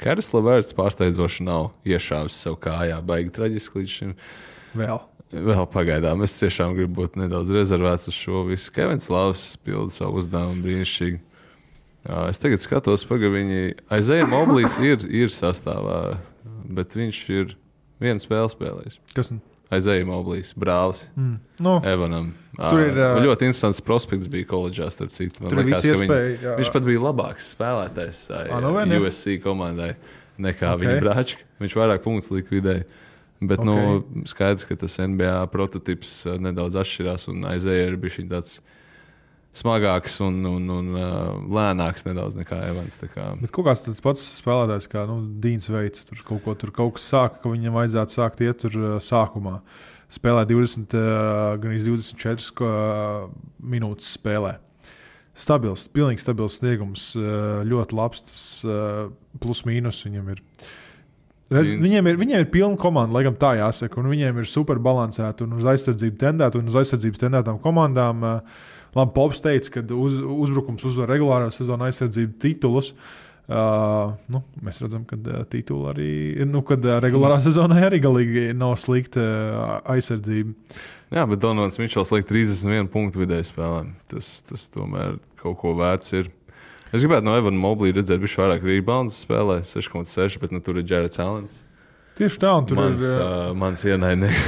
Karis Leverts pārsteidzoši nav iešāvis sev kājā, baigi traģiski līdz šim. Vēl pagaidām. Es tiešām gribu būt nedaudz rezervēts uz šo visu. Kevins Lavs pilda savu uzdevumu brīnišķīgi. Es tagad skatos, viņi Isaiah Mobley's ir sastāvā, bet viņš ir vienu spēli spēlējis. Kas? Isaiah Mobley's brālis Evanam. Tur ir ļoti interesants prospekts bija koledžā, starp citu. Man liekas, ka viņš pat bija labāks spēlētājs USC komandai nekā viņa brāčki. Viņš vairāk punktus likvidēja. Bet skaidrs, ka tas NBA prototips nedaudz atšķirās, un Isaiah ir bijis tāds smagāks un lēnāks nedaudz nekā Evans. Bet kaut kāds tāds pats spēlētājs kā Dīns Veits, tur kaut kas sāka, ka viņam vajadzētu sākt iet tur sākumā. Spēlē 24 minūtes spēlē. Pilnīgi stabils sniegums, ļoti labs, tas plus mīnus viņam ir. Viņiem ir pilna komanda, laikam tā jāsaka, un viņiem ir super balansēta un uz aizsardzību tendēta, un uz aizsardzības tendētām komandām. Labi, Pops teica, ka uzbrukums uzvar regulārā sezonā aizsardzību titulus. Mēs redzam, ka tituli arī, kad regulārā sezonā arī galīgi nav slikta aizsardzība. Jā, bet Donovans Mitčels liek 31 punktu vidēji spēlēm. Tas tomēr kaut ko vērts ir. Es gribētu no Evana Mobley redzēt bišķi vairāk rebounds spēlē, 6,6, bet tur ir Jarrets Allens. Tieši tā, un tur mans ienaidnieks.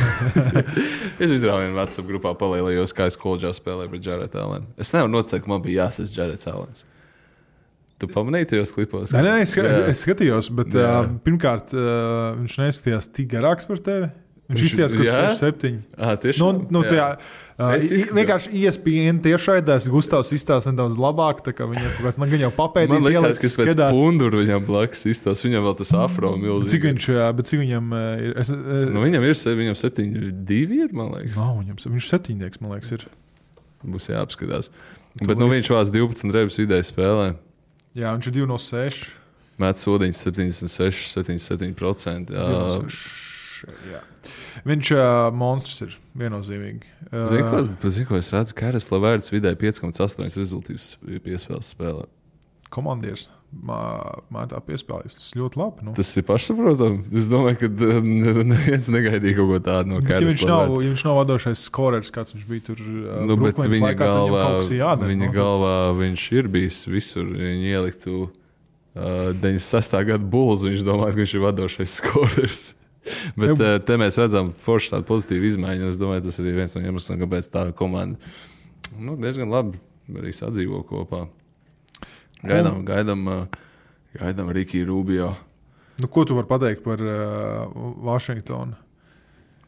Es izrāvu vienu WhatsApp grupā palielījos, kā es koledžā spēlēju pret Jarrett Allenu. Es nevaru noteikt, ka man bija jāsas Jarrets Allens. Tu pamanīji tajos klipos? Nē, es skatījos, bet pirmkārt, viņš neizskatījās tik garāks par tevi. Viņš izskatījās, ka 6-7. Tieši vienkārši ESPN tiešraidēs Gustavs izstāsta nedaudz labāk, tā kā viņam kaut kas jau papēdīt. Man liekas, ka pēc punduru viņam blakus izstāsta, viņam vēl tas afro milzīgi. Cik viņam ir? Viņam 7-2 ir, man liekas. Viņš 7-nieks, man liekas, ir. Būs jāapskatās. Bet viņš vāc 12 rebus vidēji spēlē. Jā, viņš ir 2 no 6. Met sodiņas 76, 77%. Viņš monstrs ir viennozīmīgi. Zinu, ko es redzu, ka Karas Lavērts vidēji 5,8 rezultīvus piespēles spēlē. Komandieris mētā piespēlēs. Tas ļoti labi. Nu. Tas ir pašsaprotami. Es domāju, ka neviens negaidīja kaut ko tādu no Karas Lavērta. Ja viņš nav vadošais skorers, kāds viņš bija tur bet viņa laikā, galvā, galvā viņš ir bijis visur. Viņa ieliktu 96. gada Bulls, viņš domāja, ka viņš ir vadošais skorers. Bet te mēs redzam forši tādu pozitīvu izmaiņu. Es domāju, tas ir viens no iemesliem, kāpēc tā komanda diezgan labi arī sadzīvo kopā. Gaidām Rikiju Rubio. Ko tu vari pateikt par Vašingtonu?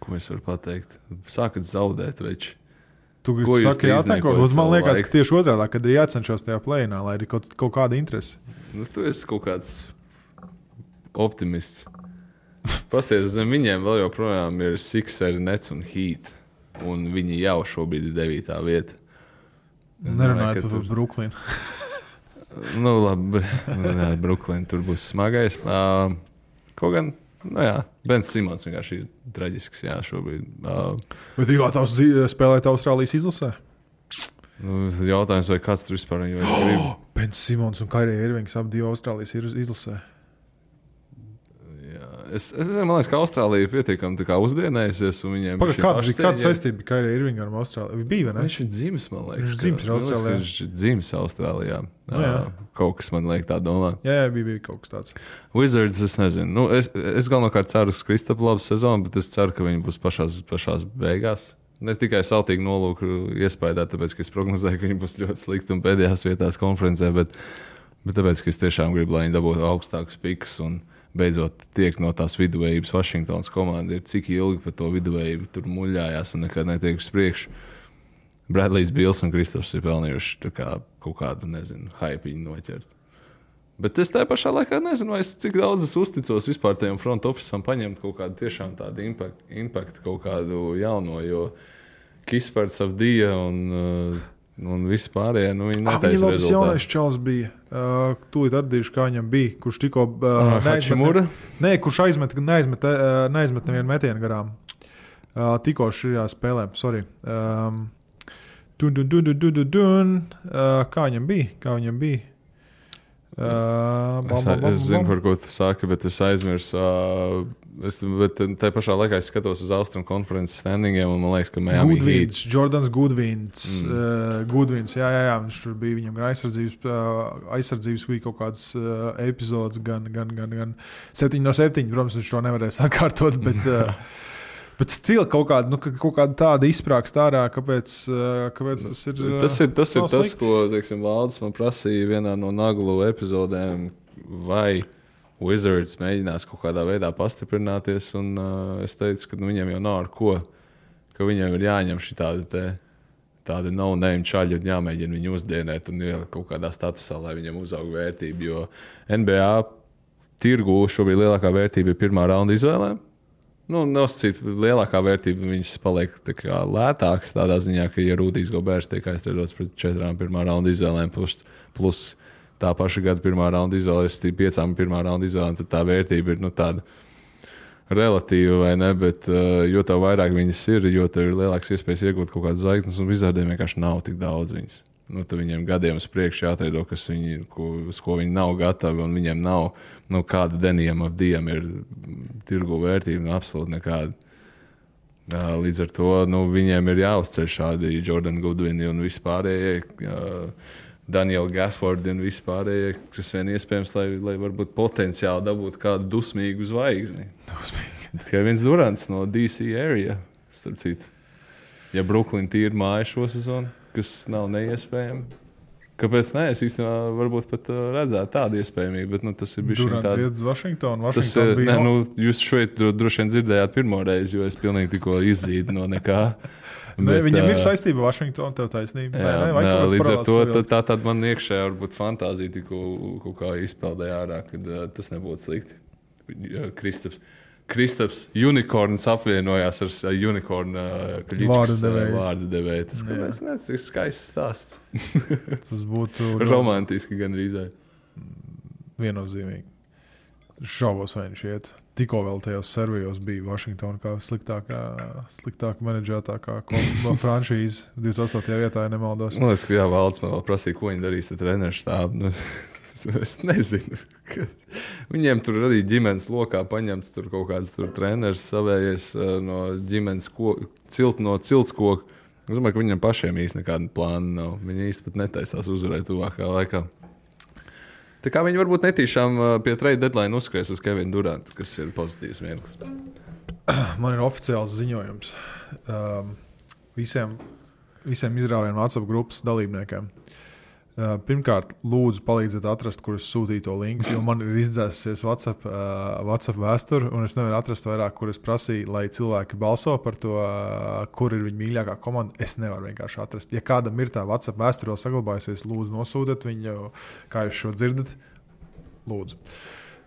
Ko es varu pateikt? Sākat zaudēt, veči. Tu gribi saki jātanko? Man liekas, ka tieši otrādā, kad ir jācenšas tajā play-inā, lai ir kaut kāda interese. Tu esi kaut kāds optimists. Pasties, zem viņiem vēl joprojām ir Sixers, Nets un Heat. Un viņi jau šobrīd ir 9. vieta. Nerunājot par Brooklynu. Labi, Brooklyn tur būs smagais. Kaut gan, Bens Simons vienkārši ir traģisks, šobrīd. Bet tu gatavs spēlēt Austrālijas izlasē? Jautājums, vai kāds tur vispār viņu grib? Bens Simons un Kairija Irvings abi Austrālijas izlasē. Es man liekas, ka Austrālija ir pietiekami uzdienējusies. Kāda saistība bija Kairija Irvinga ar Austrāliju? Bija, vai ne? Viņš ir dzimis, man liekas. Viņš dzimis Austrālijā. Viņš ir dzimis Austrālijā. Kaut kas man liek tā domāt. Jā, bija kaut kas tāds. Wizards, es nezinu. Es galvenokārt ceru, ka Kristapu labu sezonu, bet es ceru, ka viņi būs pašās beigās. Ne tikai saltīgi nolūku iespējā, tāpēc, ka es prognozēju, ka viņi būs ļoti slikti un pēdējās vietās konferencē, bet tāpēc, ka es tiešām gribu, lai viņi dabūtu augstākus pikus un beidzot tiek no tās viduvējības Vašingtonas komanda. Ir cik ilgi par to viduvējību tur muļājās un nekad netiek uz priekšu. Bradley's Bills un Kristaps ir pelnījuši kaut kādu, hype noķert. Bet es tajā pašā laikā nezinu, cik daudz es uzticos vispār tajam front office'am paņemt kaut kādu tiešām tādu impact kaut kādu jauno, jo Kispards Avdija un visi pārējie, viņi netaisa rezultātu. Viņam tas jaunais čals bija. Tūlīt atdīšu, kā viņam bija, kurš tikko kurš neaizmet nevienu metienu garām. Tikko šajā spēlē, sorry. Kā viņam bija? Es zinu, par ko tu sāki, bet es aizmirsu. Bet tajā pašā laikā es skatos uz Austrum konferences standingiem, un man liekas, ka Miami Heat. Jordans Goodwins. Jā, viņš tur bija viņam aizsardzības bija kaut kāds epizodes, gan 7 no 7, protams, viņš to nevarēs atkārtot, bet stila kaut kāda tāda izsprākst ārā, kāpēc tas ir Tas ir tas, ko, teiksim, Valdis man prasīja vienā no Naglu epizodēm, vai Wizards mēģinās kaut kādā veidā pastiprināties, un es teicu, ka viņiem jau nav ar ko, ka viņiem ir jāņem šī tāda no-name čaļi un jāmēģina viņu uzdienēt un ielikt kaut kādā statusā, lai viņiem uzaug vērtību, jo NBA tirgu šobrīd lielākā vērtība ir pirmā raunda izvēlēm. Nosacīt lielākā vērtība, viņas paliek lētākas tādā ziņā, ka, ja Rūdijs Goberts tiek aizstrādots pret 4 pirmā raunda izvēlēm plus tā paša gada pirmā raunda izvēle, respektīvi 5 pirmā raunda izvēlēm, tad tā vērtība ir tāda relatīva, vai ne, bet jo tev vairāk viņas ir, jo tev ir lielāks iespējas iegūt kaut kādas zvaigznes, un Wizardiem vienkārši nav tik daudz viņas. Tad viņiem gadiem uz priekšu jāatreido, uz ko viņi nav gatavi, un viņiem nav, kāda Denijam Avdijam ir tirgu vērtība, absolūti nekāda. Līdz ar to, viņiem ir jāuzceļ šādi Jordan Goodwini un vispārējie, Daniel Gafford un vispārējie, kas vien iespējams, lai varbūt potenciāli dabūtu kādu dusmīgu zvaigzni. Tikai viens Durants no DC area, starp citu. Ja Brooklyn tīri māja šo sezonu, kas nav neiespējami. Kāpēc ne? Es īstenībā varbūt pat redzētu tādu iespējamību, bet tas ir bijis Durants iet uz Vašingtonu. Bija... jūs šeit droši vien dzirdējāt pirmo reizi, jo es pilnīgi tikko izzīdu no nekā. Viņam ir saistība ar Vašingtonu, tev taisnība. Līdz ar to tā man iekšējā varbūt fantāzija tikko kaut kā izpeldēja ārā, kad tas nebūtu slikti. Kristaps Unicorns apvienojās ar Unicorn vārdu devēju. Tas ir skaists stāsts. Tas būtu romantiski gan rīzē. Viennozīmīgi. Šaubos, vai viņš iet. tikko vēl tajos servijos bija Washington kā sliktāk menedžētākā franšīze 28. vietā, ja nemaldos. Man liekas, ka Valds man vēl prasīja, ko viņi darīs ar treneru štābu. Es nezinu. Viņiem tur arī ģimenes lokā paņemts tur kaut kāds tur treneris savējies no ģimenes no ciltskoka. Es domāju, ka viņiem pašiem īsti nekāda plāna nav. Viņi īsti pat netaisās uzvarēt tuvākajā laikā. Tā kā viņi varbūt netīšām pie trade deadline uzskries uz Kevinu Durantu, kas ir pozitīvs mirklis. Man ir oficiāls ziņojums visiem izrāvienu WhatsApp grupas dalībniekiem. Pirmkārt, lūdzu palīdziet atrast, kur es sūtīju to linku, jo man ir izdzēsusies WhatsApp vēsturi, un es nevaru atrast vairāk, kur es prasīju, lai cilvēki balso par to, kur ir viņa mīļākā komanda. Es nevaru vienkārši atrast. Ja kādam ir tā WhatsApp vēsture vēl saglabājusies, lūdzu nosūtiet viņu, kā jūs šo dzirdat. Lūdzu.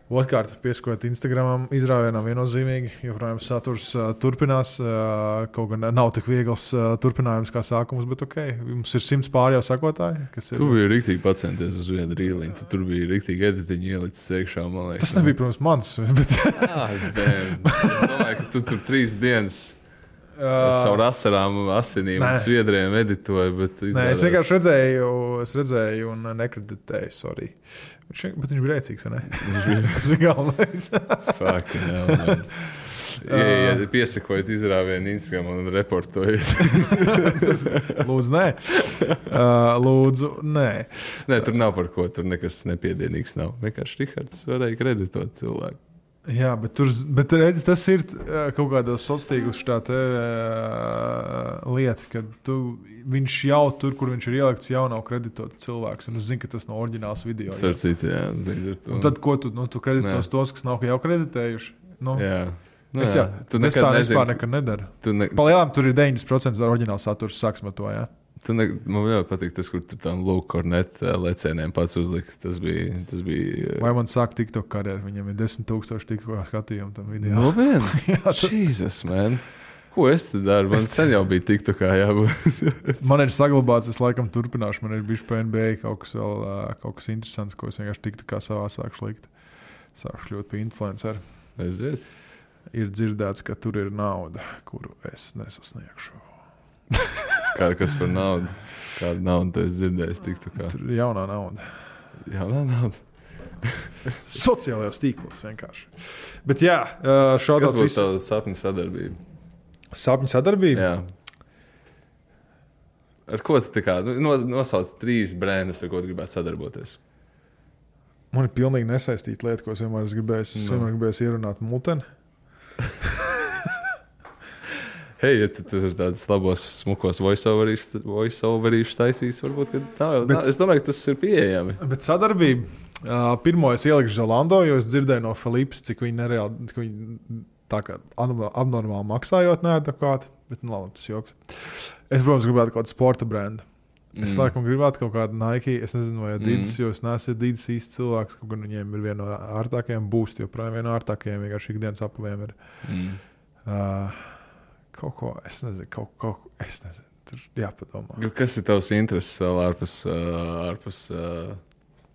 Otkārt, pieskojot Instagramam, izrāvienam viennozīmīgi, joprojām saturs turpinās. Kaut gan nav tik viegls turpinājums kā sākums, bet ok, mums ir 100 pār jau sakotāji. Tu biji rīktīgi pacenties uz vienu rīliņu, tu tur biji rīktīgi editiņu ielicis iekšā, man liekas. Tas nebija, protams, mans, bet... Es domāju, ka tu tur 3 dienas caur asarām, asinīm un sviedriem editoju, bet izrādās... Nē, es vienkārši redzēju un nekreditēju, sorry. Bet viņš bija rēcīgs, vai ne? Tas bija galvenais. Fucking hell, man. Ja piesakojat izrāvienu Instagram un reportojat. Lūdzu, nē. Lūdzu, nē. Nē, tur nav par ko, tur nekas nepiedienīgs nav. Vienkārši Rihards varēja kreditot cilvēku. Jā, bet redz, tas ir kaut kādos sociālos tā lieta, ka viņš jau tur, kur viņš ir ielikts, jau nav kreditots cilvēks. Un es zinu, ka tas nav oriģināls video. Starcīt, jā. Un tad, ko tu kreditos tos, kas nav jau kreditējuši? Nu, jā. Es tā vispār nekad nedaru. Palielām tur ir 90% oriģināls saturs, sāksim ar to, jā. Man jau patīk tas, kur tur tam Luke Cornet lecieniem pats uzlika. Tas bija... Vai man sāk TikTok karjeru? Viņam ir 10,000 TikTok skatījumu tam video. No vien? Jesus, man. Ko es te daru? Man sen jau bija TikTokā jābūt. Man ir saglabāts, es laikam turpināšu. Man ir bijuši pa NBA kaut kas interesants, ko es vienkārši TikTokā savā sākšu likt. Sākšu kļūt pie influenceri. Aiziet. Ir dzirdēts, ka tur ir nauda, kuru es nesasniegšu. Kas par naudu? Kādu naudu tu esi dzirdējis TikTokā? Tur ir jaunā nauda. Jaunā nauda? Sociālajos tīklos vienkārši. Bet jā, šādās... Kas būtu tava sapņu sadarbība? Sapņu sadarbība? Jā. Ar ko tu tā kā... Nosauc 3 brandus, ar ko tu gribētu sadarboties? Man ir pilnīgi nesaistīta lieta, ko es vienmēr gribēju ierunāt muteni. Hei, ja tu tur tādas labos, smukos voice-overīšus taisīs, varbūt, ka tā vēl... Es domāju, ka tas ir pieejami. Bet sadarbība. Pirmo es ielikšu Zalando, jo es dzirdēju no Filipas, cik viņi nereāli, cik viņi tā kā abnormāli maksājot neadekvāti, bet labi, tas joks. Es, protams, gribētu kaut kādu sporta brendu. Es laikam gribētu kaut kādu Nike, es nezinu, vai Adidas, jo es neesmu Adidas īsts cilvēks, kaut gan viņiem ir viena no ārtākajiem, Boost joprojām viena no ārtākajiem, vienkārši ikdienas apaviem ir. Kaut ko, es nezinu, es nezinu, tur jāpadomā. Kas ir tavs intereses vēl ārpus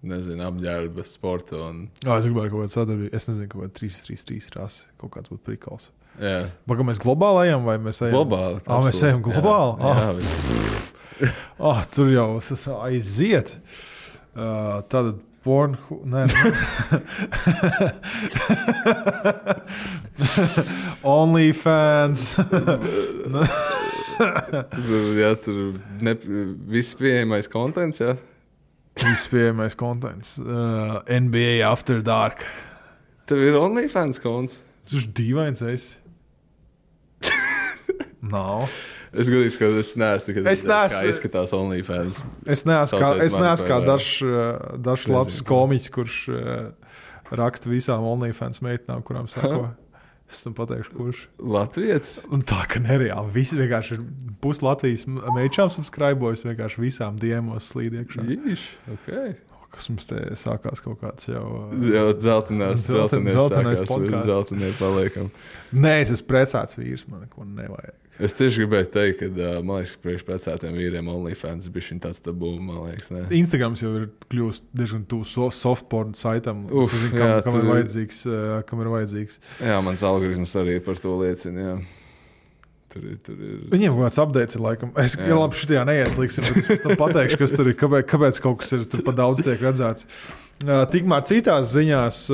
nezinu, apģērba, sporta un... Es gribētu kaut kādu sadarbību, es nezinu, kaut kādu 3-3-3 rasi, kaut kāds būtu prikals. Jā. Baga mēs globāli ejam, vai mēs ejam? Globāli. Mēs ejam globāli? Jā, tur jau aiziet. Tad OnlyFans. Jā, tur viss pieejamais kontents, jā? Viss pieejamais kontents. NBA After Dark. Tev ir OnlyFans konts? Tas ir dīvains esi. Nav. Es godīgi, ka es neesmu nekad kā izskatās OnlyFans. Es neesmu kā dažs labs komiķis, kurš raksta visām OnlyFans meitnām, kurām sako. Es tam pateikšu, kurš. Latvijas? Un tā, ka nereāli. Visi vienkārši ir pus Latvijas meičām subscribojas, vienkārši visām diemos slīd iekšā. Jīš, ok. Kas mums te sākās kaut kāds jau... Jau dzeltenais podcasts. Dzeltenē paliekam. Nē, es esmu precēts vīrs, man neko nevajag. Es tieši gribēju teikt, ka, man liekas, ka priekš precētiem vīriem OnlyFans bišķiņ tāds tabū, man liekas, ne? Instagrams jau ir kļūst diezgan tuvu softporn saitam. Es nezinu, kam ir vajadzīgs. Jā, mans algoritms arī par to liecina, jā. Tur ir. Viņiem kaut kāds updates ir laikam. Es labi šitajā neieslīgsim, bet es pēc tam pateikšu, kas tur ir, kāpēc kaut kas ir tur pa daudz tiek redzēts. Tikmēr citās ziņās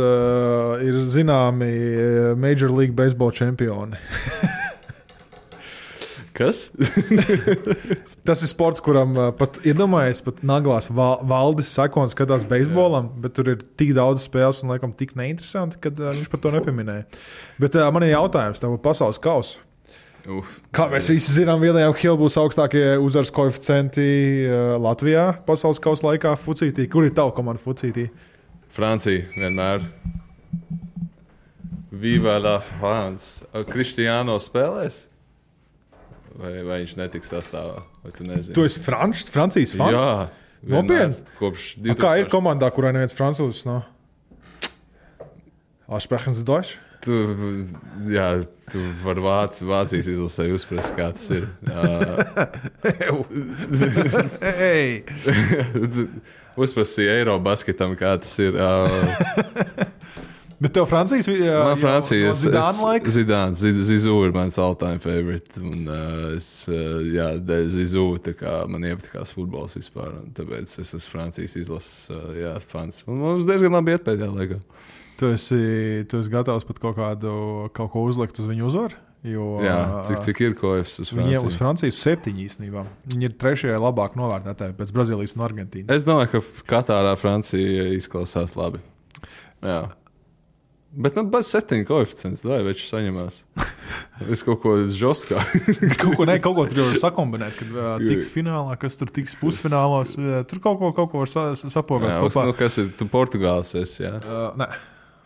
ir zināmi Major League Baseball čempioni. Kas? Tas ir sports, kuram pat iedomājies, pat naglās Valdis Sakons skatās beisbolam, bet tur ir tik daudz spēles un laikam tik neinteresanti, kad viņš par to nepieminēja. Bet man ir jautājums tev pasaules kausu. Kā mēs visi zinām, William Hill būs augstākie uzvaras koeficienti Latvijā pasaules kausa laikā fucītī. Kur ir tava komanda fucītī? Francija vienmēr. Viva la France. Cristiano spēlēs? Vai viņš netiks sastāvā? Vai tu nezini? Tu esi Francijas fans? Jā. Nopietni? Kopš 2000. Kā ir komandā, kurā neviens francūzs nav? Sprechen Sie Deutsch? Tu vari Vācijas izlasē uzprast, kā tas ir. Uzprasīja Eirobasketam, kā tas ir. Bet tev Francijas? Man Francijas. Zidāna laiks? Zidāns. Zizū ir mans all-time favorite. Un dēļ Zizū, tā kā man iepatikās futbols vispār. Tāpēc es esmu Francijas izlases fans. Un mums diezgan labi iet pēdējā laikā. Tu esi gatavs pat kaut ko uzlikt uz viņu uzvaru? Jā, cik ir koefs uz Franciju? Viņiem uz Francijas 7 īstenībā. Viņi ir 3. labāk novērtētāji pēc Brazīlijas un Argentīnas. Es domāju, ka Katārā Francija izklausās labi. Jā. Bet bez 7 koeficients, lai viņš saņemās. Es kaut ko žostkā. kaut ko tur jau sakombinēt, kad tiks finālā, kas tur tiks pusfinālos. Tur kaut ko var sapogāt. Jā, kopā. Kas ir? Tu Portugāls esi, jā? Nē.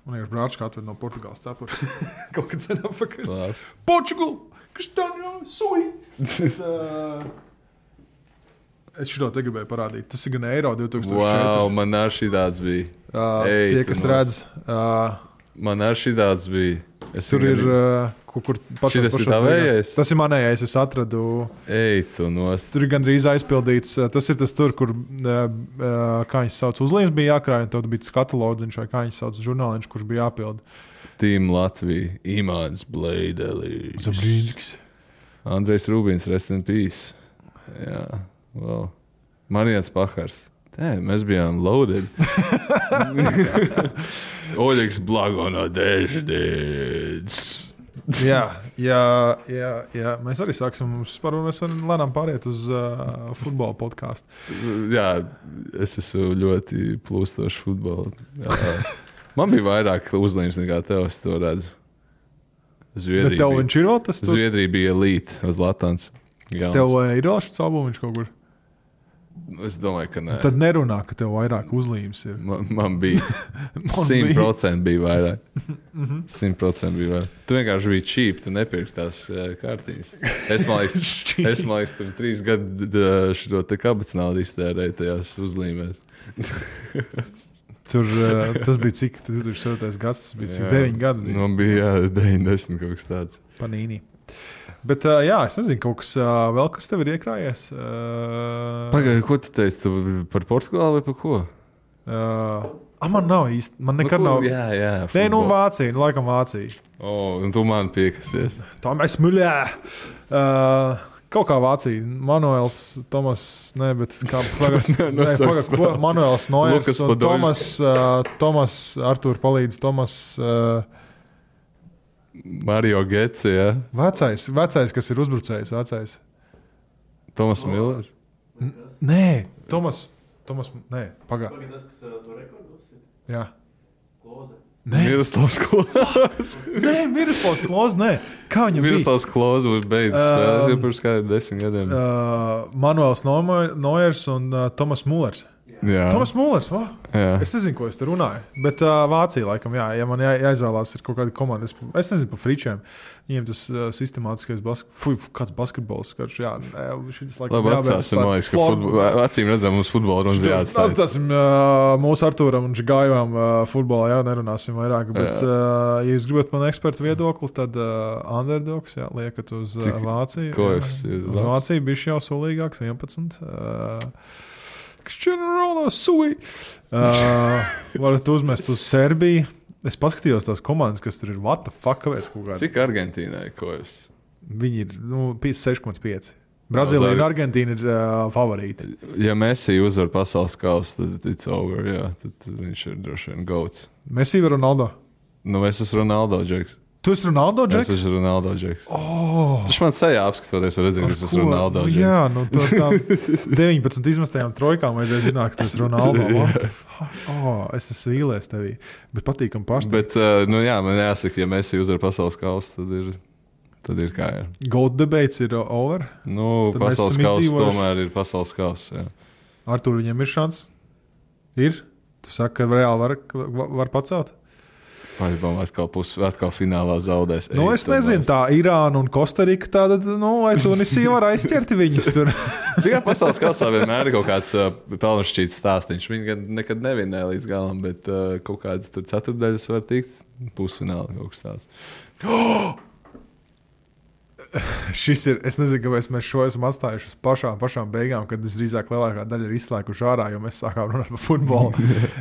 Man ir brāčka atved no Portugāles cepura. Kaut kad sen apakaļ. Labs. Portugal! Kristaņo! Sui! Es šito te gribēju parādīt. Tas ir gan Eiro 2004. Wow, man ar šī tāds bija. Tie, kas redz. Man ar šī tāds bija. Tur ir kur šitas ir tavējais? Tas ir manējais, es atradu. Tu nost. Tur ir gandrīz aizpildīts. Tas ir tas tur, kur, kā viņš sauc, uzlīmes bija jākrāj, un tad bija tas katalodziņš, vai kā viņš sauc, žurnāliņš, kurš bija jāpild. Team Latvija, Imants Bleidelis. Zabrīnskis. Andrejs Rubins, rest in peace. Jā, wow. Marians Pahars. Mēs bijām loaded. Oļegs Blagono Deždēds. Jā. Mēs arī sāksim. Mēs varam lēnām pāriet uz futbola podcastu. Jā, es esmu ļoti plūstošs futbola. Man bija vairāk uzlīmes nekā tev, es to redzu. Bet tev viņš ir vēl tas? Zviedrija bija elite uz Latants. Tev ir vēl šis albumiņš kaut kur? Es domāju, ka nē. Tad nerunā, ka tev vairāk uzlīmes ir. Man bija 100% bija vairāk. 100% bija vairāk. Tu vienkārši biji cheap, tu nepirksi tās kārtiņas. Es man liekas, tur 3 gadu šo te kabatas naudu iztērēju tajās uzlīmēs. Tas bija cik? 2007. gads, tas bija cik? 9 gadi? Man bija 90 kaut kas tāds. Panīni. Bet, es nezinu, kaut kas vēl, kas tev ir iekrājies. Pagaidi, ko tu teici? Tu par Portugāli vai par ko? Man nav īsti. Man nekad nav. Jā. Nē, Vācija. Laikam Vācija. Un tu man piekasies. Tā mēs muļā. Kaut kā Vācija. Manuels, Tomas, bet kā Manuels Noiers un Tomas Artūr palīdz. Tomas... Mario Getsi, jā. Vecais, kas ir uzbrucējs, vecais. Tomas Miller? Nē, Tomas, nē, pagā. Tas, kas to rekordos ir? Jā. Kloze. Miroslavs Kloze. Nē, Miroslavs Kloze, nē. Kā viņam bija? Miroslavs Kloze beidz spēlēt, jau pirms kādiem 10 gadiem. Manuels Noiers un Tomas Mullers. Jā. Toms Mullers, Jā. Es nezinu, ko es tur runāju. Bet Vācija, laikam, jā, ja man jāizvēlās ir kaut kāda komanda, es nezinu par fričiem. Viņiem tas sistemātiskais basketbols, karš, jā. Šitas, laikam, Labi, atstāsim, man liekas, ka acīm redzam, mums futbola runas jāatstājas. Atstāsim mūsu Artūram un Žigājumam futbolā, jā, nerunāsim vairāk. Bet, ja jūs gribat man ekspertu viedokli, tad underdogs, jā, liekat uz Vāciju. Kofs ir uz Vāciju bišķi jau sulīgāks, 11. Cristiano Ronaldo, sui. Varat uzmest uz Serbiju. Es paskatījos tās komandas, kas tur ir. What the fuck? Cik Argentīnai Kofs? Viņi ir 56,5. Brazīlija un Argentīna ir favorīti. Ja Messi uzvar pasaules kausu, tad it's over, jā. Tad viņš ir droši vien goats. Messi vai Ronaldo? Nu, es esmu Ronaldo džeks. Tu esi Ronaldo džeks? Es esmu Ronaldo džeks. Taču man sajā apskatoties, redzēt, ka es esmu Ronaldo džeks. Jā, nu tām 19 izmestajām trojkām vajadzēja zināt, ka tu esi Ronaldo. Es esmu vīlies tevī. Bet patīkam paštai. Bet, nu jā, man jāsaka, ja Messi uzvar pasaules kausu, tad ir kā ir. Goat debates ir over? Nu, tad pasaules kausu tomēr ir pasaules kausu, jā. Artur, viņam ir šans? Ir? Tu saki, ka reāli var pacelt? Vai atkal finālā zaudēs? Nu, es nezinu, tā Irāna un Kostarika tāda, vai Tunisija var aizķert viņus tur. Cik kā pasaules kausā vienmēr ir kaut kāds pelnušķīts stāstiņš. Viņi nekad nevinēja līdz galam, bet kaut kādas tur ceturtdaļas var tikt pusfinālā kaut kas tāds. Šis ir, es nezinu, kāpēc mēs šo esam atstājuši uz pašām beigām, kad drīzāk lielākā daļa ir izslēguši ārā, jo mēs sākām runāt par futbolu.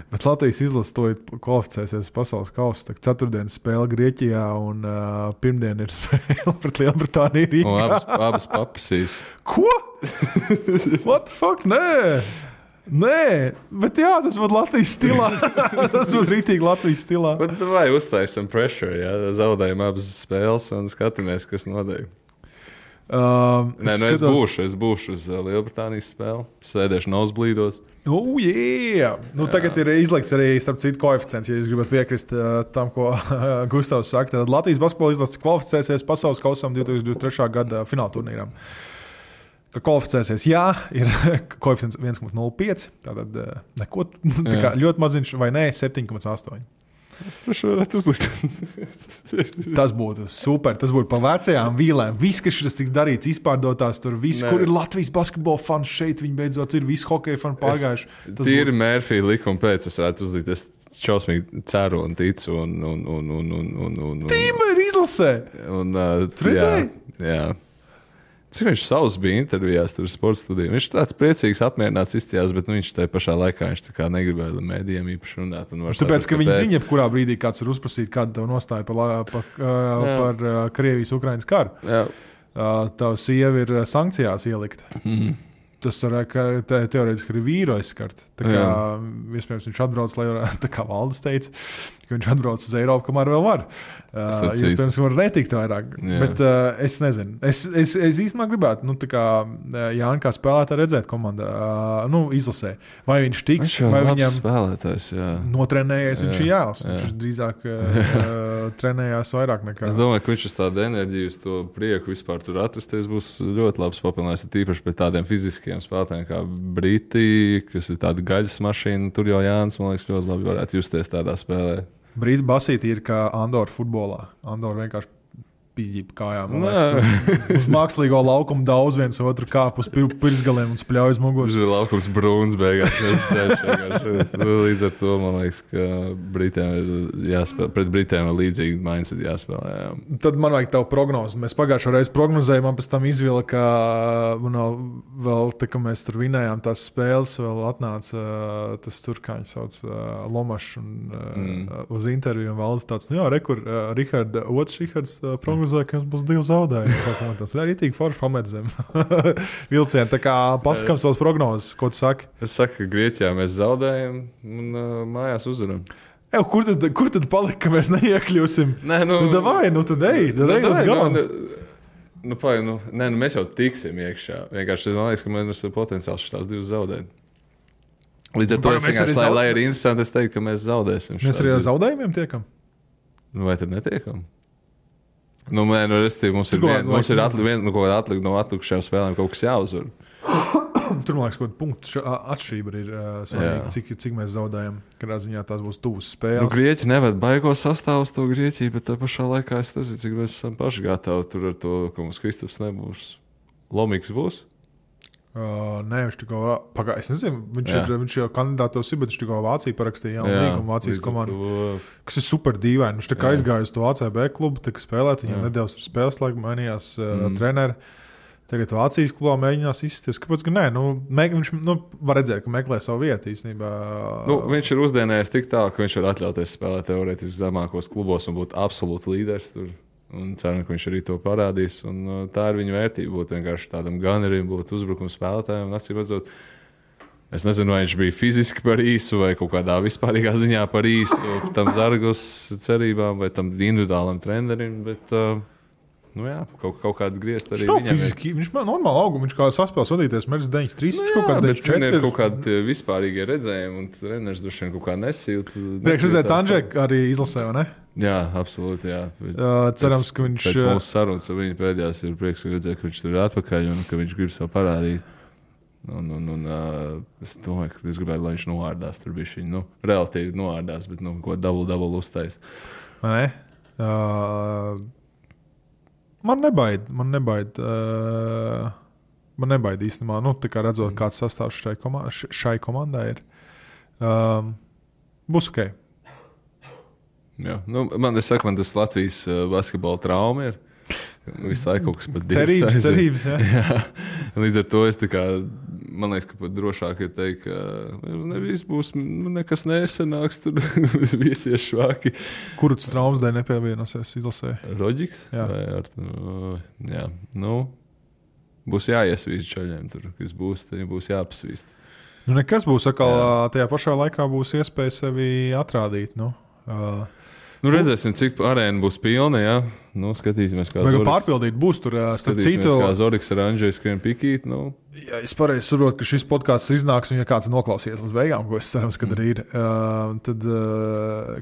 Bet Latvijas izlase to kvalificēsies pasaules kausu. Tā ceturtdienas spēle Grieķijā un pirmdien ir spēle pret Lielbritāniju Rīgā. Abas papasīs. Ko? What the fuck? Nē, bet jā, tas būtu Latvijas stilā. Tas būtu rītīgi Latvijas stilā. Bet vai uztaisam pressure, jā? Zaudējam abas spēles un skatāmies, kas notiek. Es būšu uz Lielbritānijas spēli. Sēdēšu nosblīdos. Yeah. Tagad ir izlikts arī, starp citu, koeficients, ja jūs gribat piekrist tam, ko Gustavs saka. Tad Latvijas basketbola izlase kvalificēsies pasaules kausam 2023. gada fināla turnīram. Ka kvalificēsies, jā, ir koeficients 1,05. Tātad neko, tā kā ļoti maziņš, vai nē, 7,8. Es droši varētu uzlikt. Tas būtu super. Tas būtu pa vecajām vīlēm. Viss, kas šis tik darīts, izpārdotās tur. Viss, kur ir Latvijas basketbola fans šeit, viņi beidzot ir visi hokeja fani pārgājuši. Tīri Mērfija likuma pēc es varētu uzlikt. Es šausmīgi ceru un ticu. Tīma ir izlasē. Jā. Cik viņš savs bija intervijās tur sporta studijā. Viņš tāds priecīgs, apmierināts izstījās, bet viņš tajā pašā laikā negribēja mēdījiem īpaši runāt. Tāpēc, ka viņi zina, jebkurā brīdī kāds ir uzprasīt, kāda tev nostāja par Krievijas-Ukrainas karu. Jā. Tava sieva ir sankcijās ielikta. Tas teorētiski arī vīru aizskart. Iespējams, viņš atbrauc, lai varētu, tā kā Valdis teica, ka viņš atbrauc uz Eiropu, kamēr vēl var. Iespējams, ka var netikt vairāk. Bet es nezinu. Es īstenībā gribētu, Jāni kā spēlētāji redzēt komandā, izlasē. Vai viņš tiks, vai viņam notrenējies, viņš ir jālas. Viņš drīzāk trenējās vairāk nekā. Es domāju, ka viņš uz tādu enerģiju, uz to prieku vispār tur atrasties būs ļoti labs papildinājums, tīpaši pret tādiem fiziskiem spēlētājiem kā Briti, kas ir tāda gaļas mašīna. Tur jau Jānis, man liekas, ļoti labi varētu justies tādā spēlē. Brīti basīti ir kā Andora futbolā. Andora vienkārši pīģība kājām. Uz mākslīgo laukumu daudz viens otru kāp uz pirsgaliem un spļauj uz muguras. Tur ir laukums brūns beigās. Līdz ar to, man liekas, ka Britiem ir jāspēlē. Pret Britiem ir līdzīgi mindset jāspēlē. Jā. Tad man vajag tavu prognozi. Mēs pagājušo reizi prognozējām, man pēc tam izvilka, vēl tā, ka mēs tur vinējām tās spēles, vēl atnāca tas tur, kā viņi sauc, Lomašs uz interviju un valdes tāds, Rihards prognozēja, ka jums būs 2 zaudējumi. Tas ir rītīgi forši pamedzem vilcieni. Tā kā pasakam savas prognozes, ko tu saki? Es saku, ka Grieķijā mēs zaudējam un mājās uzvaram. Kur tad palika, ka mēs neiekļūsim? Davai, tad ej līdz galam. Mēs jau tiksim iekšā. Vienkārši man liekas, ka mums ir potenciāls šitās 2 zaudēt. Līdz ar to es vienkārši, lai ir interesanti, es teiktu, ka mēs zaudēsim. Mēs arī ar zaudējumiem tiekam? Vai tad netiekam? Mums ir atlikt no atlikušajām spēlēm kaut kas jāuzvar. Tur, man liekas, kaut kāda punktu atšķirība ir svarīga, cik mēs zaudējam. Kādā ziņā tās būs tuvas spēles. Nu, Grieķi nevar baigo sastāvu uz to Grieķiju, bet tā pašā laikā es nezinu, cik mēs esam paši gatavi tur ar to, ka mums Kristaps nebūs. Lomīgs būs? Nē, viņš tikko pagājis. Es nezinu, viņš jau kandidātos ir, bet viņš tikko Vācija parakstīja jaunu līgumu Vācijas komandu, kas ir super dīvaini. Viņš tā kā aizgāja uz to ACB klubu, tika spēlēt, viņam nedēļas tur spēles laiku mainījās treneri. Tagad Vācijas klubā mēģinās izsties. Kāpēc gan nē? Viņš var redzēt, ka meklē savu vietu īstenībā. Viņš ir uzdienējis tik tālu, ka viņš var atļauties spēlēt teorētiski zemākos klubos un būt absolūts līderis tur. Un ceram, ka viņš arī to parādīs. Un tā ir viņa vērtība. Būt vienkārši tādam gunnerim, būt uzbrukuma spēlētājiem. Acīm redzot, es nezinu, vai viņš bija fiziski par īsu vai kaut kādā vispārīgā ziņā par īsu tam Zargos cerībām vai tam individuālam trenerim. Bet, kaut kāds griezt arī viņam. Fiziski, viņš man normāli auga, viņš kā saspēles vadīties, mērķis 93, viņš kaut kādā 94. Ir kaut kādi vispārīgie redzējumi, un treneris droši vien kaut kā nesīt. Priekš redzēt, Andžek arī izlasē, vai ne? Jā, absolūti, jā. Cerams, ka viņš... Pēc mūsu sarunas ar viņu pēdējās ir prieks redzēt, ka viņš tur ir atpakaļ un ka viņš grib sev parādīt. Es domāju, ka es gribētu, lai viņš noārdās tur bišķiņ. Relatīvi noārdās, bet ko double uztais. Vai ne? Man nebaid īstenībā, tā kā redzot, kāds sastāvs šai komandai ir. Būs ok. Jā, man tas Latvijas basketbola trauma ir. Visu laiku kaut kas pat cerības, jā. Līdz ar to es man liekas, ka pat drošāk ir teikt, ka nevis būs, nekas nesanāks, tur visi ir švāki. Kuru tas traumas dēļ nepievienosies izlasē? Roģiks? Jā. Jā. Būs jāiesvīst čaļiem tur, kas būs, tad būs jāpasvīst. Nekas būs, tajā pašā laikā būs iespēja sevi atrādīt, redzēsim, cik arēna būs pilna, jā. Skatīsimies, kā Zoriks. Pārpildīt būs tur, starp citu. Kā Zoriks ar Andžeju skrien pikīt, Ja es pareizi saprotu, ka šis podcasts iznāks, un ja kāds noklausīsies līdz beigām, ko es cerams, ka arī ir, tad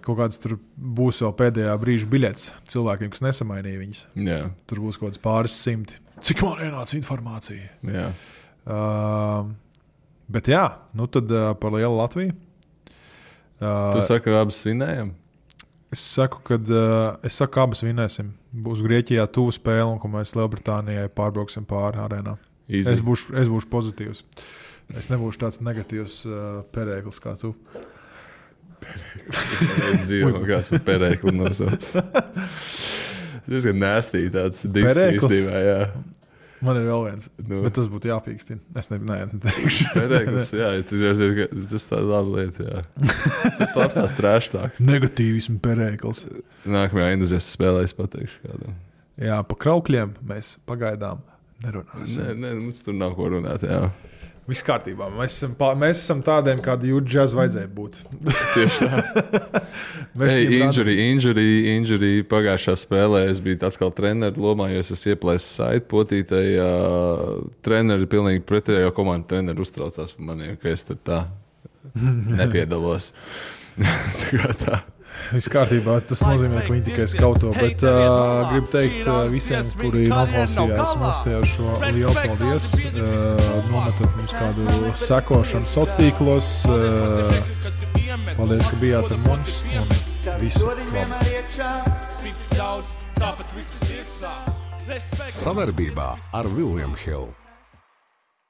kaut kāds tur būs vēl pēdējā brīža biļets cilvēkiem, kas nesamainīja viņas. Jā. Tur būs kaut kāds pāris simti. Cik man ienāca informācija? Jā. Bet jā, tad par lielu Latviju. Tu saki, ka abas svinējam? Es saku, ka abas vinēsim. Būs Grieķijā tuvu spēle, un ka mēs Lielbritānijai pārbrauksim pāri arēnā. Es būšu pozitīvs. Es nebūšu tāds negatīvs perēklis kā tu. Es dzīvoju, kāds par perēkli nosauc. Tas ir nēstī tāds disks īstībā, jā. Man ir vēl viens, bet tas būtu jāpīkstina. Es neteikšu. Perēklis, jā, tas tā laba lieta, jā. Tas labs tās trēštāks. Negatīvismu perēklis. Nākamajā entuziasta spēlē es pateikšu kādam. Jā, pa kraukļiem mēs pagaidām nerunāsim. Nē, mums tur nav ko runāt, jā. Viss kārtībā. Mēs esam tādiem, kādi Jūta džaz vajadzēja būt. Tieši tā. Injury pagājušā spēlē es biju atkal treneru lomā, jo es esmu ieplēsis saiti potītei. Treneri pilnīgi pretējo komandu treneri uztraucās par maniem, ka es tur tā nepiedalos. Tā. Viss kārtībā, tas nozīmē, ka viņi tikai skauto, bet gribu teikt visiem, kuri noklausījās mums tajā šo lielu paldies. Nometat mums kādu sekošanu sociālos tīklos. Paldies, ka bijāt ar mums un visu labu. Savarbībā ar William Hill.